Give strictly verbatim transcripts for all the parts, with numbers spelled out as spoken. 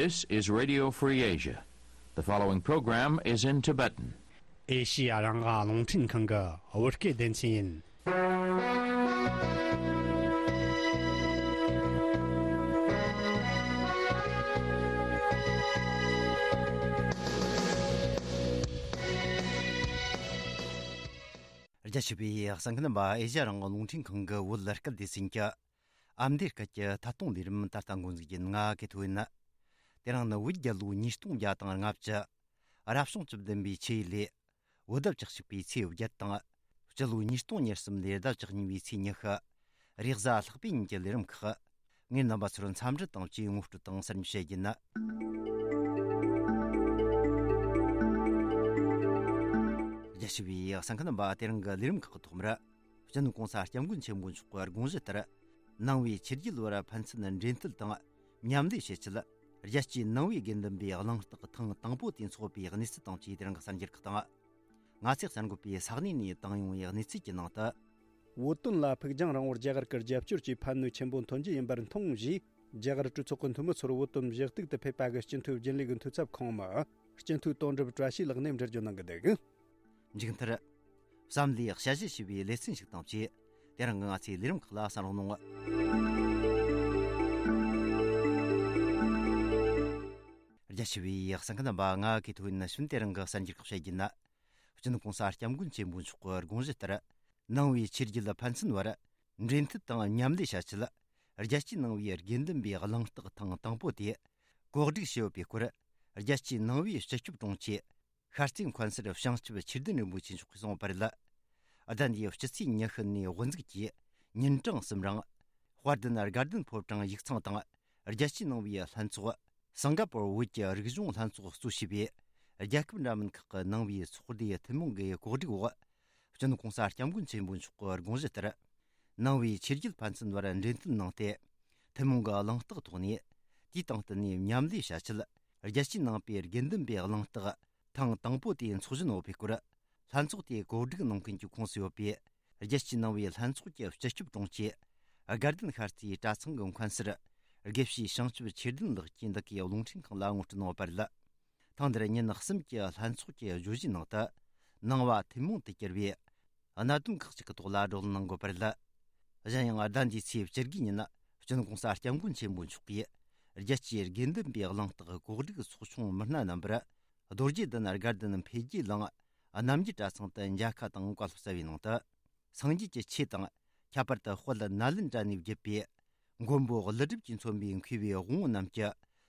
This is Radio Free Asia. The following program is in Tibetan. ཨེ་ཤི་ཡ་རང་དབང་རླུང་འཕྲིན་ཁང་གི་བོད་སྐད་སྡེ་ཚན་ཡིན། རྒྱ་ཆེ་བའི་གསན་མཁན་རྣམ་པ། ཨེ་ཤི་ཡ་རང་དབང་རླུང་འཕྲིན་ཁང་གི་བོད་སྐད་སྡེ་ཚན་གྱི་ཨ་མདོའི་སྐད་ཀྱི་ཐད་གཏོང་ལས་རིམ་ད་ལྟ་འགོ་འཛུགས་ཡིན། ང་གི་ཐོ་ཡིན། དེ་རིང་ནི་བོད་རྒྱལ་ལོ་ཉིས་སྟོང་བརྒྱ་དང་ལྔ་བཅུ། རབ་བྱུང་བཅུ་བདུན་པའི་ཆུ་ཡོས་ལོའི་བོད་ཟླ་བཅུ་གཅིག་པའི་ཚེས་བརྒྱད་དང་། སྤྱི་ལོ་ཉིས་སྟོང་ཉེར་གསུམ་ལོའི་ཟླ་བཅུ་གཉིས་པའི་ཚེས་ཉི་ཤུ། རེས་གཟའ་ལྷག་པའི་ཉིན་གྱི་ལས་རིམ་ཁག་ངས་རྣམ་པ་ཚོར་འཚམས་འདྲི་དང་བཅས་ངོ་སྤྲོད་དང་གསར་འགྱུར་བཤད་རྒྱུ་ཡིན། རྒྱ་ཆེ་བའི་གསན་མཁན་རྣམ་པ། དེ་རིང་གི་ལས་རིམ་ཁག་གི་ཐོག་མར། སྤྱི་ནོར་༸གོང་ས་༸སྐྱབས་མགོན་ཆེན་པོ་མཆོག་གི་དགོངས་གཞི་ལྟར། ནང་པའི་ཆོས་བརྒྱུད་བར་ཕན་ཚུན་འབྲེལ་མཐུད་དང་མཉམ་ལས་བྱེད་ཆེད། རྒྱལ་སྤྱིའི་ནང་པའི་དགེ་འདུན་པའི་གླེང་སྟེགས་ཐེངས་དང་པོ་དེ་འཚོགས་པའི་གནས་ཚུལ་དང་བཅས་དེ་རིང་གི་གསར་འགྱུར་ཁག་དང་། ང་ཚོས་གསར་འགོད་པས་ས་གནས་ནས་བཏང་ཡོང་བའི་གནས་ཚུལ་གྱི་ནང་དུ། བོད་དོན་ལ་ཕུགས་རྒྱང་རིང་བོར་རྒྱ་གར་གྱི་རྒྱབ་སྐྱོར་གྱི་ཕན་ནུས་ཆེན་པོ་ཐོན་རྒྱུ་ཡིན་པར་མཐོང་ཞེས། རྒྱ་གར་གྲོས་ཚོགས་ཀྱི་འཐུས་མི་ཚོར་བོད་དོན་ཞུ་གཏུག་ཏུ་ཕེབས་པ་གི་སྤྱི་འཐུས་རྒྱུན་ལས་ཀྱི་འཐུས་ཚབ་ཁོངས་མི་སྤྱི་འཐུས་དོན་གྲུབ་བཀྲ་ཤིས་ལགས་ནས་འགྲེལ་བརྗོད་གནང་གི་འདུག། མཇུག་མཐར། བསམ་བློའི་དཔྱད་གཞི་ཞེས་པའི་ལེ་ཚན་ཞིག་དང་བཅས། དེ་རིང་གི་ང་ཚོའི་ལས་རིམ་ཁག་ལ་གསན་རོགས་གནང་། རྒྱ་ཆེ་བའི་གསན་མཁན་རྣམ་པ། ང་གི་ཐོ་ཡིན། ནི་ཤུན། དེ་རིང་གི་གསར་འགྱུར་ཁག་བཤད་རྒྱུ་ན། སྤྱི་ནོར་༸གོང་ས་༸སྐྱབས་མགོན་ཆེན་པོ་མཆོག་གི་དགོངས་གཞི་ལྟར། ནང་པའི་ཆོས་བརྒྱུད་ཕན་ཚུན་བར་འབྲེལ་མཐུད་དང་མཉམ་ལས་བྱ་ཆེད། རྒྱལ་སྤྱིའི་ནང་པའི་དགེ་འདུན་པའི་གླེང་སྟེགས་ཐེངས་དང་པོ་དེ་གོ་སྒྲིག་བྱས་ཡོད་པའི་སྐོར། རྒྱལ་སྤྱིའི་ནང་པའི་སྤྱི་ཁྱབ་དྲུང་ཆེ། ཤར་རྩེ་མཁན་ཟུར་བྱང་ཆུབ་ཆོས་ལྡན་རིན་པོ་ཆེ་མཆོག་གིས་གསུངས་པ་རེད། ཟླ་འདིའི་སྤྱི་ཚེས་ཉི་ཤུ་ནས་དབུ་འཛུགས་ཀྱིས་ཉིན་གྲངས་གསུམ་རིང་། དཔལ་ལྡན་དགའ་ལྡན་ཕོ་བྲང་ཡིག་ཚང་དང་། རྒྱལ་སྤྱིའི་ནང་པའི་ལྷན་ཚོགས། སིང་ག་པོར་བོད་ཀྱི་རིག་གཞུང་ལྷན་ཚོགས་གཙོ་བྱས་པའི་རྒྱལ་ཁབ་འདྲ་མིན་ཁག་གི་ནང་པའི་ཚོགས་སྡེ་ཐུན་མོང་གི་གོ་སྒྲིག་འོག། སྤྱི་ནོར་༸གོང་ས་༸སྐྱབས་མགོན་ཆེན་པོ་མཆོག་གི་དགོངས་གཞི་ལྟར། ནང་པའི་ཆོས་བརྒྱུད་ཕན་ཚུན་བར་འབྲེལ་མཐུད་གནང་སྟེ། ཐུན་མོང་གི་གླེང་སྟེགས་ཐོག་ནས། དུས་དང་བསྟུན་ནས་མཉམ་ལས་བྱ་ཆེད། རྒྱལ་སྤྱིའི་ནང་པའི་དགེ་འདུན་པའི་གླེང་སྟེགས་ཐེངས་དང་པོ་དེ་འཚོགས་བཞིན་ཡོད་པའི་སྐོར། ལྷན་ཚོགས་དེ་གོ་སྒྲིག་གནང་མཁན་གྱི་ཁོངས་སུ་ཡོད་པའི་རྒྱལ་སྤྱིའི་ནང་པའི་ལྷན་ཚོགས་ཀྱི་སྤྱི་ཁྱབ་དྲུང་ཆེ། དགའ་ལྡན་ཤར་རྩེའི་གྲྭ་ཚང་གི་མཁན་ཟུར། དགེ་བཤེས་བྱང་ཆུབ་ཆོས་ལྡན་ལགས་ཀྱིས་འདི་གའི་རླུང་འཕྲིན་ཁང་ལ་ངོ་སྤྲོད་གནང་ཡོད་པ་རེད། ཐེངས་འདིར་ཉིན་གསུམ་གྱི་ལྷན་ཚོགས་ཀྱི་བརྗོད་གཞིའི་ནང་དུ། ནང་པ་ཐུན་མོང་དུ་གྱུར་པའི་གནད་དོན་ཁག་ཅིག་གི་ཐོག་ལ་བགྲོ་གླེང་གནང་དགོས་པ་རེད། གཞན་ཡང་ཟླ་འདིའི་ཚེས་བཅུ་དགུའི་ཉིན། སྤྱི་ནོར་༸གོང་ས་༸སྐྱབས་མགོན་ཆེན་པོ་མཆོག་གིས། རྒྱལ་སྤྱིའི་དགེ་འདུན་པའི་གླེང་སྟེགས་གོ་སྒྲིག་ཚོགས་ཆུང་མི་སྣ་རྣམ་པར། རྡོ་རྗེ་གདན་དགའ་ལྡན་འཕེལ་རྒྱས་གླིང་རྣམ་རྒྱལ་གྲྭ་ཚང་དུ་མཇལ་ཁ་དང་བཀའ་སློབ་སྩལ་བའི་ནང་དུ། སངས་རྒྱས་ཀྱི་ཆོས་དང་། ཁྱད་པར་དུ་དཔལ་ནཱ་ལེནྡྲ་ནས་བརྒྱུད་པའི་མགོན་པོ་ཀླུ་སྒྲུབ་ཀྱིས་མཚོན་པའི་མཁས་པའི་དབང་པོ་རྣམས་ཀྱི་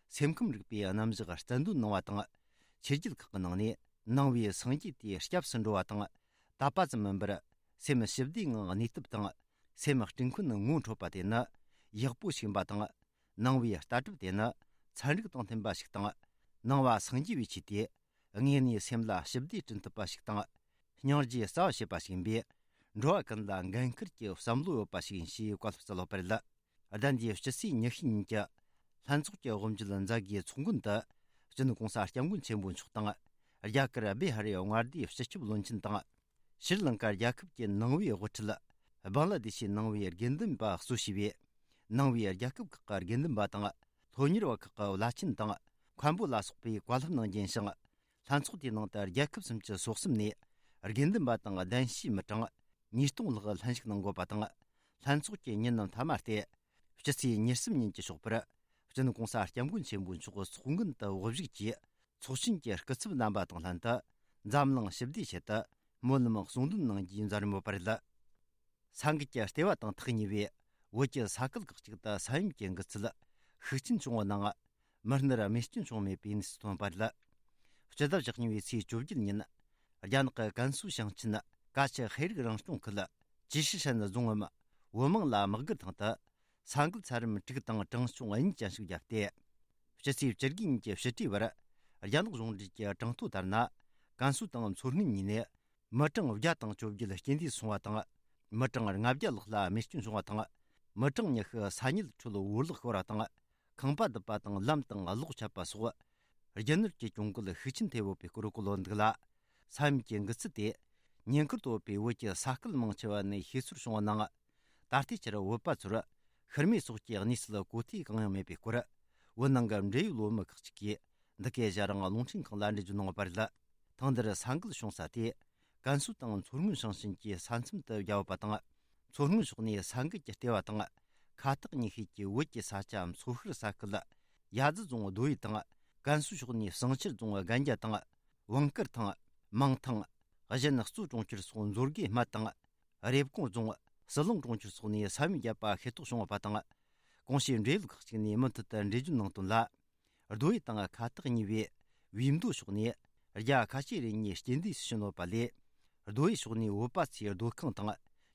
སེམས་ཁམས་རིག་པའི་རྣམ་གཞག་རྩལ་འདོན་གནང་བ་དང་། ཆོས་བརྒྱུད་ཁག་གི་ནང་ནས་ནང་པའི་སངས་རྒྱས་དེ་སྐྱབས་སུ་འགྲོ་བ་དང་། དད་པ་ཙམ་མིན་པར་སེམས་ཞི་བདེའི་ངང་གནས་ཐབས་དང་། སེམས་སྤྲིན་ཁུན་ངོ་འཕྲོད་པ་དེ་ནི་ཡག་པོ་ཞིག་ཡིན་པ་དང་། ནང་པའི་ལྟ་གྲུབ་དེ་ནི་ཚན་རིག་དང་མཐུན་པ་ཞིག་དང་། ནང་པ་སངས་རྒྱས་པའི་ཆོས་དེ། དངོས་གནས་སེམས་ལ་ཞི་བདེ་བསྐྲུན་ཐུབ་པ་ཞིག་དང་། སྙིང་རྗེ་རྩ་བ་བྱེད་པ་ཞིག་ཡིན་པས། འགྲོ་བ་ཀུན་ལ་འགན་ཁུར་གྱི་བསམ་བློ་ཡོད་པ་ཞིག་ཡིན་ཞེས་བཀའ་སློབ་སྩལ་ཡོད་པ་རེད། ཟླ་འདིའི་སྤྱི་ཚེས་ཉི་ཤུའི་ཉིན་གྱི་ལྷན་ཚོགས་ཀྱི་དབུ་འབྱེད་མཛད་སྒོའི་ཚོགས་མགོན་དུ། སྤྱི་ནོར་༸གོང་ས་༸སྐྱབས་མགོན་ཆེན་པོ་མཆོག་དང་། རྒྱ་གར་བི་ཧར་རི་མངའ་སྡེའི་སྤྱི་ཁྱབ་བློན་ཆེན་དང་། ཤྲི་ལང་ཀ་རྒྱལ་ཁབ་ཀྱི་ནང་པའི་དབུ་ཁྲིད། བང་ལ་དེ་ཤའི་ནང་པའི་དགེ་འདུན་པ་གཙོ་བྱས་པའི་ནང་པའི་རྒྱལ་ཁབ་ཁག་གི་དགེ་འདུན་པ་དང་། སློབ་གཉེར་བ་ཁག་གི་བླ་ཆེན་དང་། མཁན་པོ་ལ་སོགས་པས་བཀའ་སློབ་གནང་རྒྱུ་ཡིན་ཞིང་། ལྷན་ཚོགས་དེའི་ནང་དུ་རྒྱལ་ཁབ་སུམ་ཅུ་སོ་གསུམ་ནས་དགེ་འདུན་པ་དང་གདན་ཞུའི་མི་གྲངས་ཉིས་སྟོང་ལྷག་ལྷན་ཞུགས་གནང་དགོས་པ་དང་། ལྷན་ཚོགས་ཀྱི་ཉིན་ནམ་མཐའ་མ་སྟེ། སྤྱི་ཚེས་ཉེར་གསུམ་ཉིན་གྱི་ཞོགས་པར། སྤྱི་ནོར་༸གོང་ས་༸སྐྱབས་མགོན་ཆེན་པོ་མཆོག་ཚོགས་མགོན་དུ་དབུ་བཞུགས་ཀྱིས། ཚོགས་ཆེན་གྱི་སྐུ་ཚབ་རྣམ་པ་དང་ལྷན་དུ། འཛམ་གླིང་ཞི་བདེའི་ཆེད་དུ་སྨོན་ལམ་གསུང་འདོན་གནང་རྒྱུའི་མཛད་རིམ་ཡོད་པ་རེད། ས་འགུལ་གྱི་ལྟེ་བ་དང་ཐག་ཉེ་བའི་བོད་ཀྱི་ས་ཁུལ་ཁག་ཅིག་ཏུ་ས་ཡོམ་གྱི་འགུལ་ཚད་ཤུགས་ཆེན་བྱུང་བ་ནང་། མི་སྣར་རྨས་སྐྱོན་བྱུང་མེད་པའི་གནས་ཚུལ་ཐོན་པ་རེད། སྤྱི་ཟླ་བཅུ་གཉིས་པའི་ཚེས་བཅོ་བརྒྱད་ཉིན། རྒྱ་ནག་གི་ཀན་སུའུ་ཞིང་ཆེན་ཀ་ཆི་ཧེ་རིག་རང་སྐྱོང་ཁུལ་ཅི་ཧྲི་ཧྲན་རྫོང་ངམ་ཝུ་མང་ལ་དམག་སྒར་ཐང་དུ། ས་འགུལ་ཚད་རིམ་དྲུག་དང་གྲངས་ཆུང་གཉིས་ཅན་ཞིག་བརྒྱབ་སྟེ། སྤྱི་ཚེས་བཅུ་དགུ་ཉིན་གྱི་ཕྱི་དྲོའི་བར། རྒྱ་ནག་གཞུང་འབྲེལ་གྱི་གྲངས་ཐོ་ལྟར་ན། ཀན་སུའུ་དང་མཚོ་སྔོན་གཉིས་ནས། མི་གྲངས་བརྒྱ་དང་བཅོ་བརྒྱད་རྐྱེན་འདས་སོང་བ་དང་། མི་གྲངས་ལྔ་བརྒྱ་ལྷག་ལ་རྨས་སྐྱོན་བྱུང་བ་དང་། མི་གྲངས་ཉི་ཤུ་ས་ཉིལ་ཁྲོད་འོར་བརླག་ཤོར་བ་དང་། ཁང་པ་བརྡིབས་པ་དང་ལམ་དང་གློག་ཆད་པ་སོགས། རྒྱུ་ནོར་གྱི་གྱོང་གུད་ཤུགས་ཆེན་ཐེབས་ཡོད་པའི་སྐོར་བཀོད་ཡོད་འདུག་ལ། ས་ཡོམ་གྱི་འགུལ་ཚད་དེ། ཉེན་ཁར་དོ་བའི་བོད་ཀྱི་ས་ཁུལ་མང་ཆེ་བ་ནས་ཤེས་ཚོར་བྱུང་བ་ནང་། ད་ལྟའི་ཆར་བོད་པ་ཚོར་ཤི་རྨས་སོགས་ཀྱི་གནས་ཚུལ་གོ་ཐོས་གང་ཡང་མེད་པའི་སྐོར། བོད་ནང་གི་འབྲེལ་ཡོད་སློབ་མ་ཁག་ཅིག་གིས་འདི་གའི་ཞལ་རང་རླུང་འཕྲིན་ཁང་ལ་འགྲེལ་བརྗོད་གནང་བ་རེད། ཐེངས་འདིར་ས་འགུལ་བྱུང་ས་དེ། ཀན་སུའུ་དང་མཚོ་སྔོན་ཞིང་ཆེན་གྱི་ས་མཚམས་དུ་བརྒྱབ་པ་དང་། མཚོ་སྔོན་ཕྱོགས་ནས་ས་འགུལ་གྱི་ལྟེ་བ་དང་། ཁ་ཐག་ཉེ་ཤོས་ཀྱི་བོད་ཀྱི་ས་ཆ་མཚོ་ཤར་ས་ཁུལ། ཡ་ཛི་རྫོང་རྡོ་ཡི་དང་། ཀན་སུའུ་ཕྱོགས་ནས་བསང་ཆུ་རྫོང་རྒན་རྒྱ་དང་། བང་དཀར་ཐང་། མང་ཐང་། གཞན་གཙོ་གྲོང་ཁྱེར་སོགས་མཛོད་དགེ་སྨད་དང་། རེབ་གོང་རྫོང་། ཟི་ལིང་གྲོང་ཁྱེར་སོགས་ནས་ས་ཡོམ་བརྒྱབ་པ་ཤེས་རྟོགས་བྱུང་བ་དང་། གོང་ཞུས་འབྲེལ་ཡོད་ཁག་ཅིག་ནས་མུ་མཐུད་དུ་འགྲེལ་བརྗོད་གནང་དོན་ལ། རྡོ་ཡི་དང་ཁ་ཐག་ཉེ་བའི་བིས་མདོ་ཕྱོགས་ནས་རྒྱ་ཁ་ཤས་རེ་གཉིས་རྐྱེན་འདས་སུ་ཕྱིན་ཡོད་པ་ལས། རྡོ་ཡི་ཕྱོགས་ནས་བོད་པ་ཚོའི་སྡོད་ཁང་དང་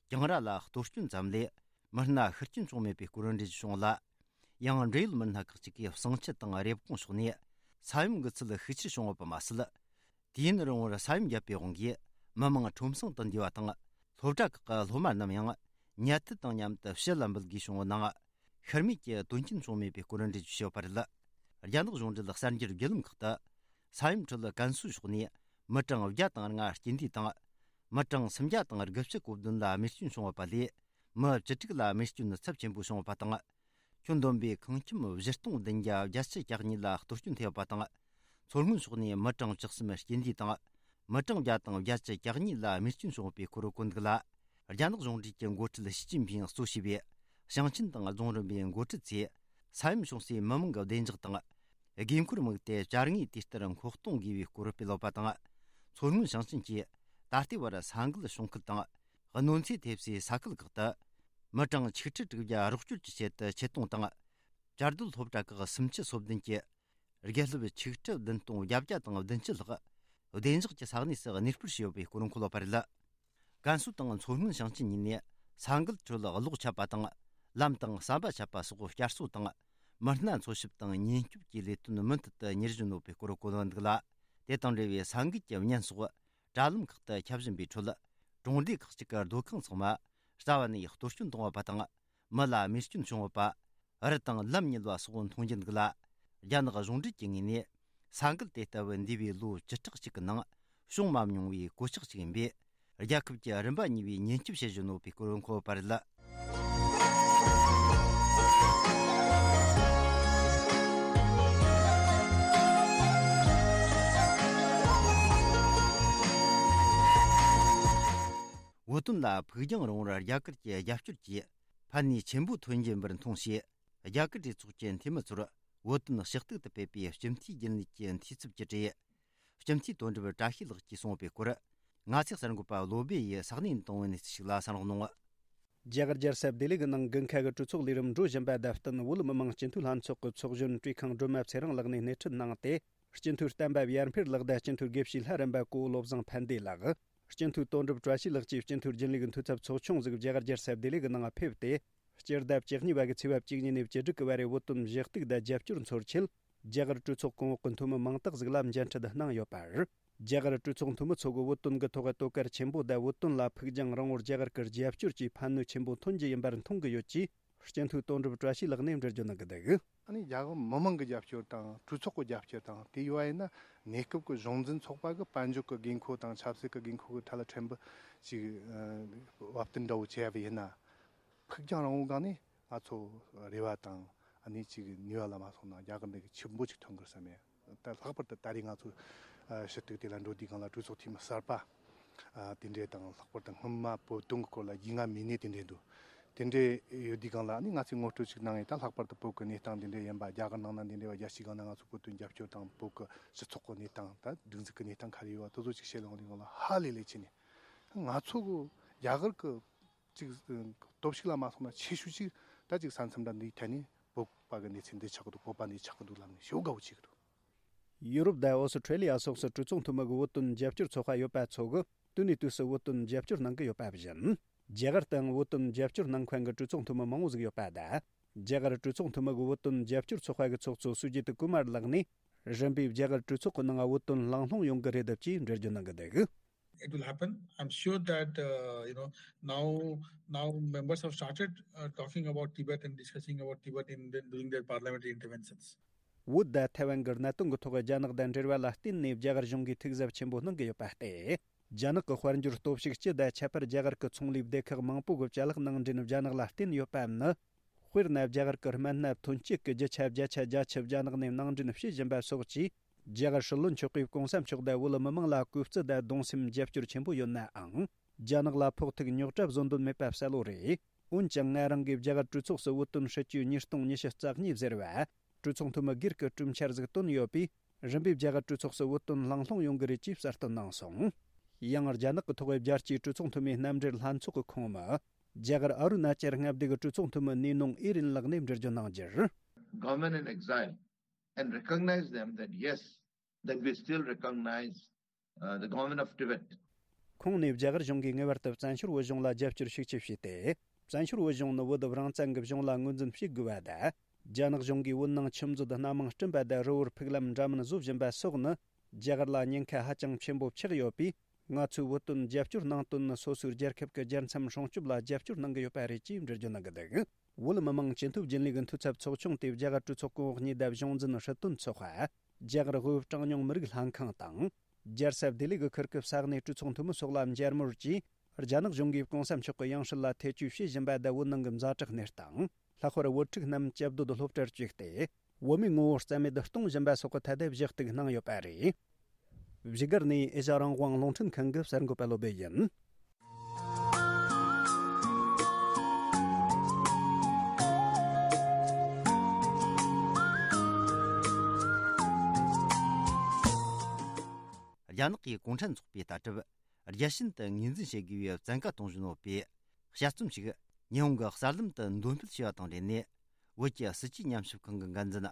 གྱང་ར་ལ་གཏོར་སྐྱོན་ཙམ་ལས་མི་སྣ་ཤི་རྐྱེན་བྱུང་མེད་པའི་སྐོར་འགྲེལ་བརྗོད་བྱུང་ལ། ཡང་འབྲེལ་ཡོད་མི་སྣ་ཁག་ཅིག་གིས་བསང་ཆུ་དང་རེབ་གོང་ཕྱོགས་ནས་ས་ཡོམ་གྱི་ཚད་ཤུགས་ཆེར་བྱུང་ཡོད་པ་མ་ཟད། དུས་ཡུན་རིང་བོར་ས་ཡོམ་བརྒྱབ་པའི་དབང་གིས་མི་མང་ཁྲོམ་སྲང་དུ་འདུས་པ་དང་། སློབ་གྲྭ་ཁག་གི་སློབ་མ་རྣམས་ཡང་ཉལ་ཐུལ་དང་མཉམ་དུ་ཕྱི་ལ་འབུད་དགོས་བྱུང་བའི་ནང་། ཤི་རྨས་ཀྱི་དོན་རྐྱེན་བྱུང་མེད་པའི་སྐོར་འགྲེལ་བརྗོད་བྱས་ཡོད་པ་རེད། རྒྱ་ནག་གཞུང་འབྲེལ་གསར་འགྱུར་བརྒྱུད་ལམ་ཁག་ཏུ། ས་ཡོམ་ཁྲོད་ཀན་སུའུ་ཕྱོགས་ནས་མི་གྲངས་བརྒྱ་དང་ལྔ་རྐྱེན་འདས་དང་། མི་གྲངས་སུམ་བརྒྱ་དང་དགུ་བཅུ་གོ་བདུན་ལ་རྨས་སྐྱོན་བྱུང་ཡོད་པ་ལས། མི་བཅུ་དྲུག་ལ་རྨས་སྐྱོན་ཚབས་ཆེན་པོ་བྱུང་ཡོད་པ་དང་། ཁྱོན་བསྡོམས་པའི་ཁང་ཁྱིམ་བཞི་སྟོང་བདུན་བརྒྱ་བརྒྱད་ཅུ་གྱ་གཉིས་ལ་གཏོར་སྐྱོན་ཐེབས་པ་དང་། མཚོ་སྔོན་ཕྱོགས་ནས་མི་གྲངས་བཅུ་གསུམ་རྐྱེན་འདས་དང་། མི་གྲངས་བརྒྱ་དང་བརྒྱད་ཅུ་གྱ་གཉིས་ལ་རྨས་སྐྱོན་བྱུང་བའི་སྐོར་བཀོད་འདུག་ལ། རྒྱ་ནག་གཞུང་འབྲེལ་གྱི་འགོ་ཁྲིད་ཞི་ཅིན་ཕིང་གཙོ་བྱས་པའི་ཞིང་ཆེན་དང་རྫོང་རིམ་པའི་འགོ་ཁྲིད་ཚོས་ས་ཡོམ་བྱུང་སའི་མི་མང་གི་བདེ་འཇགས་དང་། དགོས་མཁོར་དམིགས་ཏེ་བྱ་དངོས་དུས་ལྟར་མཁོ་གཏོང་དགོས་པའི་སྐོར་སྤེལ་ཡོད་པ་དང་། མཚོ་སྔོན་ཞིང་ཆེན་གྱིས་ད་ལྟའི་བར་ས་འགུལ་བྱུང་ཁུལ་དང་། གནོད་འཚེ་ཐེབས་སའི་ས་ཁུལ་ཁག་ཏུ། མི་གྲངས་ཆིག་ཁྲི་དྲུག་བརྒྱ་རོགས་སྐྱོར་གྱི་ཆེད་དུ་ཆེད་གཏོང་དང་། བཅའ་སྡོད་སློབ་གྲྭ་ཁག་སུམ་ཅུ་སོ་བདུན་གྱི་དགེ་སློབ་ཆིག་ཁྲི་བདུན་སྟོང་བརྒྱད་བརྒྱ་དང་བདུན་ཅུ་ལྷག་བདེ་འཇགས་ཀྱི་ས་གནས་སུ་གནས་སྤོར་བྱས་ཡོད་པའི་སྐོར་འཁོད་ཡོད་པ་རེད། ཀན་སུའུ་དང་མཚོ་སྔོན་ཞིང་ཆེན་གཉིས་ནས་ས་འགུལ་ཁྲོད་གློག་ཆད་པ་དང་། ལམ་དང་ཟམ་པ་ཆད་པ་སོགས་བསྐྱར་གསོ་དང་། མི་སྣ་འཚོལ་ཞིབ་དང་ཉེན་སྐྱོབ་ཀྱི་ལས་དོན་མུ་མཐུད་དུ་གཉེར་བཞིན་ཡོད་པའི་སྐོར་བཀོད་འདུག་ལ། དེ་དང་འབྲེལ་བའི་ས་འགུལ་གྱི་བརྙན་སོགས་དྲ་ལམ་ཁག་ཏུ་ཁྱབ་བཞིན་པའི་ཁྲོད། གྲོང་སྡེ་ཁག་ཅིག་གི་སྡོད་ཁང་ཚང་མ་རྩ་བ་ནས་གཏོར་སྐྱོན་བཏང་ཡོད་པ་དང་། མི་ལ་རྨས་སྐྱོན་བྱུང་ཡོད་པ། རི་དང་ལམ་ཉིལ་བ་སོགས་མཐོང་རྒྱུ་འདུག་ལ། རྒྱ་ནག་གཞུང་འབྲེལ་གྱི་ངོས་ནས་ས་འགུལ་དེ་ལྟ་བུ་འདས་པའི་ལོ་བཅུ་ཕྲག་གཅིག་གི་ནང་བྱུང་མ་མྱོང་བའི་གོད་ཆག་ཅིག་ཡིན་པས། རྒྱལ་ཁབ་ཀྱི་རིམ་པ་གཉིས་པའི་ཉེན་སྐྱོབ་བྱེད་བཞིན་ཡོད་པའི་སྐོར་འཁོད་ཡོད་པ་རེད། བོད་དོན་ལ་ཕུགས་རྒྱང་རིང་བོར་རྒྱ་གར་གྱི་རྒྱབ་སྐྱོར་གྱིས་ཕན་ནུས་ཆེན་པོ་ཐོན་གྱིན་པར་མཐོང་ཞེས། རྒྱ་གར་གྲོས་ཚོགས་ཀྱི་འཐུས་མི་ཚོར་བོད་དོན་ཞུ་གཏུག་ཏུ་ཕེབས་པའི་སྤྱི་འཐུས་རྒྱུན་ལས་ཀྱི་འཐུས་ཚབ་ཀྱིས་བྲིས། སྤྱི་འཐུས་དོན་གྲུབ་བཀྲ་ཤིས་ལགས་ཀྱིས་གསུངས་པའི་སྐོར། ང་ཚོའི་གསར་འགོད་པ་བློ་བྷེ་ཡིས་ས་གནས་དང་བོད་ནས་གནས་ཚུལ་ཞིག་ལ་གསན་རོགས་གནང་། རྒྱ་གར་རྒྱལ་ས་ལྡི་ལི་གི་ནང་དགུན་ཁ་གི་གྲོས་ཚོགས་ལས་རིམ་འགྲོ་བཞིན་པ་དང་བསྟུན། བོད་མི་མང་སྤྱི་འཐུས་ལྷན་ཚོགས་ཀྱི་ཚོགས་གཞོན་བཀྲས་མཁན་སྒྲོལ་མ་ཚེ་རིང་ལགས་ནས་སྣེ་ཁྲིད་གནང་སྟེ། སྤྱི་འཐུས་བསྟན་པ་ཡར་འཕེལ་ལགས་དང་སྤྱི་འཐུས་དགེ་བཤེས་ལྷ་རམས་པ་གོ་བོ་བློ་བཟང་ཕན་བདེ་ལགས། སྤྱི་འཐུས་དོན་གྲུབ་བཀྲ་ཤིས་ལགས་བཅས་སྤྱི་འཐུས་རྒྱུན་ལས་ཀྱི་འཐུས་ཚབ་ཚོགས་ཆུང་ཟིག་རྒྱ་གར་རྒྱལ་ས་ལྡི་ལི་གི་ནང་ཕེབས་ཏེ། སྤྱི་ཟླ་བཅུ་གཉིས་པ་གི་ཚེས་པ་བཅུ་གཉིས་ནས་བཅུ་དྲུག་གི་བར་རེ་བོད་དོན་ཞུ་གཏུག་དང་རྒྱབ་སྐྱོར་འཚོལ་ཆེད། རྒྱ་གར་གྲོས་ཚོགས་གོང་འོག་གི་འཐུས་མི་མང་དག་ཟིག་ལ་མཇལ་འཕྲད་གནང་ཡོད་པ་རེད། རྒྱ་གར་གྲོས་ཚོགས་འཐུས་མི་ཚོ་གིས་བོད་དོན་གྱི་ཐོག་དོ་ཁུར་ཆེན་པོ་དང་བོད་དོན་ལ་ཕུགས་རྒྱང་རིང་བོར་རྒྱ་གར་གྱི་རྒྱབ་སྐྱོར་གྱིས་ཕན་ནུས་ཆེན་པོ་ཐོན་གྱི་ཡིན་པར་མཐོང་གི་ཡོད་ཅེས་སྤྱི་འཐུས་དོན་གྲུབ་བཀྲ་ཤིས་ལགས་ནས་འགྲེལ་བརྗོད་གནང་གི་འདུག། ཨ་ནི་རྒྱ་གར་མི་མང་གི་རྒྱབ་སྐྱོར་དང་གྲོས་ཚོགས་ཀྱི་རྒྱབ་སྐྱོར་དང་དེ་ཡོད་པ་ཡིན་ན། གནས་སྐབས་ཀྱི་གཞུང་འཛིན་ཚོགས་པ་གི་དཔལ་འབྱོར་གྱི་དགོས་མཁོ་དང་ཆབ་སྲིད་ཀྱི་དགོས་མཁོ་གི་ཐད་ལ་ཕྲན་བུ་ཅིག་ཨ་བབ་བསྟུན་འདྲ་བོ་བྱས་པ་ཡིན་ན། ཕུགས་རྒྱང་རིང་བོའི་སྒང་ནས་ང་ཚོ་རེ་བ་དང་ཨ་ནི་ཅིག་ནུས་པ་ལ་མ་སོང་ན་རྒྱ་གར་འདི་གི་ཆེན་པོ་ཅིག་ཐོན་དགོས་བསམ་ཡ། ད་ལྷག་པར་དུ་ད་རེས་ང་ཚོ་ཨ་ཞུ་གཏུག་དེ་ལ་འགྲོ་དུས་སྒང་ལ་གྲོས་ཚོགས་འཐུས་མི་གསར་པ་ཨ་དེ་འདྲས་དང་། ལྷག་པར་དུ་སྔོན་མ་བོད་དོན་གྱི་སྐོར་ལ་རྒྱུས་མངའ་མེད་ནི་དེ་འདྲས་འདུག། དེ་འདྲས་ཡོད་དུས་སྒང་ལ་ཨ་ནི་ང་ཚོས་ངོ་སྤྲོད་ཅིག་གནང་ཡས། ད་ལྷག་པར་དུ་བོད་ཀྱི་གནས་སྟངས་དེ་འདྲས་ཡིན་པ། རྒྱ་གར་ནང་ན་དེ་འདྲས་པ་རྒྱལ་སྤྱིའི་སྒང་ན་ང་ཚོ་བོད་དོན་རྒྱབ་སྐྱོར་དང་། བོད་ཀྱི་སྤྱི་ཚོགས་ཀྱི་གནས་སྟངས། ད་སྒྲིག་འཛུགས་ཀྱི་གནས་སྟངས་ག་རེ་ཡོད་པ་དེ་ཚོ་ཅིག་བཤད་ཡོང་དུས་སྒང་ལ་ཧ་ལས་ལས་ཆེ་ནས། ང་ཚོ་གི་རྒྱ་གར་གྱི་ཅིག་སྟོབས་ཤུགས་ལ་མ་སོང་ན་ཆེ་ཤོས་ཅིག་ད་ཅིག་ས་མཚམས་འདྲ་འདིའི་ཐད་ནས་བོད་པ་གི་གནས་ཚུལ་འདི་ཆགས་ཀྱི་འདུག། བོད་པ་འདི་ཆགས་ཀྱི་འདུག་ལབ་ནས་ཞེ་པོ་དགའ་བོ་བྱེད་ཀྱི་འདུག། ཡུ་རོབ་དང་ཨོ་སི་ཁྲེ་ལི་ཡ་སོགས་སུ་གྲོས་ཚོགས་འཐུས་མི་གི་བོད་དོན་རྒྱབ་སྐྱོར་ཚོགས་པ་ཡོད་པ་ཚོ་གིས་དུས་ནས་དུས་སུ་བོད་དོན་རྒྱབ་སྐྱོར་གནང་གི་ཡོད་པ་བཞིན། རྒྱ་གར་དུའང་བོད་དོན་རྒྱབ་སྐྱོར་གནང་མཁན་གྱི་གྲོས་ཚོགས་འཐུས་མི་མང་བོ་ཟིག་ཡོད་པ་དང་། རྒྱ་གར་གྲོས་ཚོགས་འཐུས་མི་གི་བོད་དོན་རྒྱབ་སྐྱོར་ཚོགས་པ་གི་ཚོགས་གཙོ་སུ་ཇི་ཏི་ཀུ་མར་ལགས་ནས། རིམ་པས་རྒྱ་གར་གྲོས་ཚོགས་ཀྱི་ནང་བོད་དོན་གླེང་སློང་ཡོང་གི་རེད་ཅེས་འགྲེལ་བརྗོད་གནང་གི་འདུག། It will happen. I'm sure that, uh, you know, now, now members have started, uh, talking about Tibet and discussing about Tibet in the, during their parliamentary interventions. བོད་དང་ཐའེ་ཝན་གྱི་གནད་དོན་གྱི་ཐོག་རྒྱ་ནག་དང་འབྲེལ་བ་ལ་བརྟེན་ནས་རྒྱ་གར་གཞུང་གིས་ཐུགས་གཟབ་ཆེན་པོ་གནང་གི་ཡོད་པ་སྟེ། རྒྱ་ནག་གི་དཔལ་འབྱོར་སྟོབས་ཤུགས་སྤྱི་དང་ཁྱད་པར་རྒྱ་གར་གྱི་ཚོང་ལས་སྡེ་ཁག་མང་པོ་གི་ཅ་ལག་ནང་འདྲེན་རྒྱ་ནག་ལ་བརྟེན་ཡོད་པའམ་ནི། དཔེར་ན། རྒྱ་གར་གྱི་སྨན་སྣ་ཐོན་སྐྱེད་ཀྱི་རྒྱུ་ཆ་བརྒྱ་ཆ་བརྒྱད་ཅུ་རྒྱ་ནག་ནས་ནང་འདྲེན་བྱེད་བཞིན་པ་སོགས་ཀྱིས། རྒྱ་གར་སྲིད་བློན་མཆོག་གིས་གོང་ས་མཆོག་དང་བོད་མི་མང་ལ་གུས་བརྩི་དང་གདུང་སེམས་རྒྱབ་སྐྱོར་ཆེན་པོ་ཡོད་ནའང་། རྒྱ་ནག་ལ་ཕོག་ཐུག་རྙོག་དྲ་བཟོ་འདོད་མེད་པ་གསལ་བོ་རེད། འོན་ཀྱང་། ང་རང་གིས་རྒྱ་གར་གྲོས་ཚོགས་སུ་བོད་དོན་སྲིད་བྱུས་ཉིས་སྟོང་ཉི་ཤུ་རྩ་གཉིས་ཟེར་བ། གྲོས་ཚོགས་འཐུས་མི་སྒེར་གྱི་གྲོས་འཆར་ཟིག་བཏོན་ཡོད་པས། རིམ་པས་རྒྱ་གར་གྲོས་ཚོགས་སུ་བོད་དོན་གླེང་སློང་ཡོང་གི་རེད་ཅེས་གསལ་སྟོན་གནང་སོང་། ཡང་། རྒྱ་ནག་གི་ཐོག་རྒྱལ་སྤྱིའི་གྲོས་ཚོགས་འཐུས་མིའི་རྣམ་འགྲེལ་ལྷན་ཚོགས་ཀྱི་ཁོངས་མི། རྒྱ་གར་ཨ་རུ་ན་ཅལ་མངའ་སྡེ་གི་གྲོས་ཚོགས་འཐུས་མི་ནེ་ནོང་ཨི་རིན་ལགས་ནས་འགྲེལ་བརྗོད་གནང་རྒྱུར། Government in exile and recognize them that yes, that we still recognize, uh, the government of Tibet. ཁོང་ནས་རྒྱ་གར་གཞུང་གིས་ངེས་པར་དུ་བཙན་བྱོལ་བོད་གཞུང་ལ་རྒྱབ་སྐྱོར་ཤུགས་ཆེ་བྱས་ཏེ། བཙན་བྱོལ་བོད་གཞུང་ནི་བོད་རང་བཙན་གྱི་གཞུང་ལ་ངོས་འཛིན་བྱེད་དགོས་པ་དང་། རྒྱ་ནག་གཞུང་གིས་བོད་ནང་ཆུ་མཛོད་སྣ་མང་བསྐྲུན་པ་དང་། རི་བོར་ཕུག་ལམ་འདྲ་མིན་བཟོ་བཞིན་པ་སོགས་ནི། རྒྱ་གར་ལ་ཉེན་ཁ་ཧ་ཅང་ཆེན་པོ་ཆགས་ཡོད་པས། ང་ཚོས་བོད་དོན་རྒྱབ་སྐྱོར་གནང་དོན་ནི། སོ་སོའི་རྒྱལ་ཁབ་ཀྱི་རྒྱལ་མཚམས་སྲུང་སྐྱོབ་ལ་རྒྱབ་སྐྱོར་གནང་གི་ཡོད་པ་རེད་ཅེས་འགྲེལ་བརྗོད་གནང་གི་འདུག་བོད་མི་མང་སྤྱི་འཐུས་རྒྱུན་ལས་ཀྱི་འཐུས་ཚབ་ཚོགས་ཆུང་དེ་རྒྱ་གར་གྲོས་ཚོགས་གོང་འོག་གཉིས་དང་གཞུང་འཛིན་སྲིད་དོན་ཚོགས་པ། རྒྱ་གར་བོད་གྲངས་ཉུང་མི་རིགས་ལྷན་ཁང་དང་། རྒྱལ་ས་ལྡི་ལི་གི་ཁུལ་གྱི་ས་གནས་གྲོས་ཚོགས་འཐུས་མི་སོགས་ལ་མཇལ་མོལ་གྱིས། རྒྱ་ནག་གཞུང་གིས་གོང་ས་མཆོག་གི་ཡང་སྲིད་ལ་ཐེ་བྱུས་བྱེད་བཞིན་པ་དང་། བོད་ནང་གི་ཛ་དྲག་གནས་སྟངས། ལྷག་པར་བོད་ཕྲུག་རྣམས་བཅའ་སྡོད་སློབ་གྲྭར་བཅུག་སྟེ། བོད་མིའི་ངོ་བོ་རྩ་མེད་གཏོང་བཞིན་པ་སོགས་ཀྱི་ཐད་དུ་བཞི་གཏུག་གནང་ཡོད་པ་རེད། བཞུགས་སྒར་ནས་ཨེ་ཤ་རང་དབང་རླུང་འཕྲིན་ཁང་གི་གསར་འགོད་པ་བློ་བྷེ་ཡིན། རྒྱ་ནག་གི་གུང་ཁྲན་ཚོགས་པའི་ལྟ་གྲུབ། རྒྱལ་ཞེན་དུ་ངོས་འཛིན་བྱེད་དགོས་པའི་བཙན་བཀའ་གཏོང་བཞིན་ཡོད་པའི་དཔྱད་རྩོམ་ཞིག་ཉི་ཧོང་གི་གསར་ལམ་དུ་འདོན་སྤེལ་བྱས་པ་དང་འབྲེལ་ནས། བོད་ཀྱི་སྲིད་བྱུས་ཉམས་ཞིབ་ཁང་གི་འགན་འཛིན་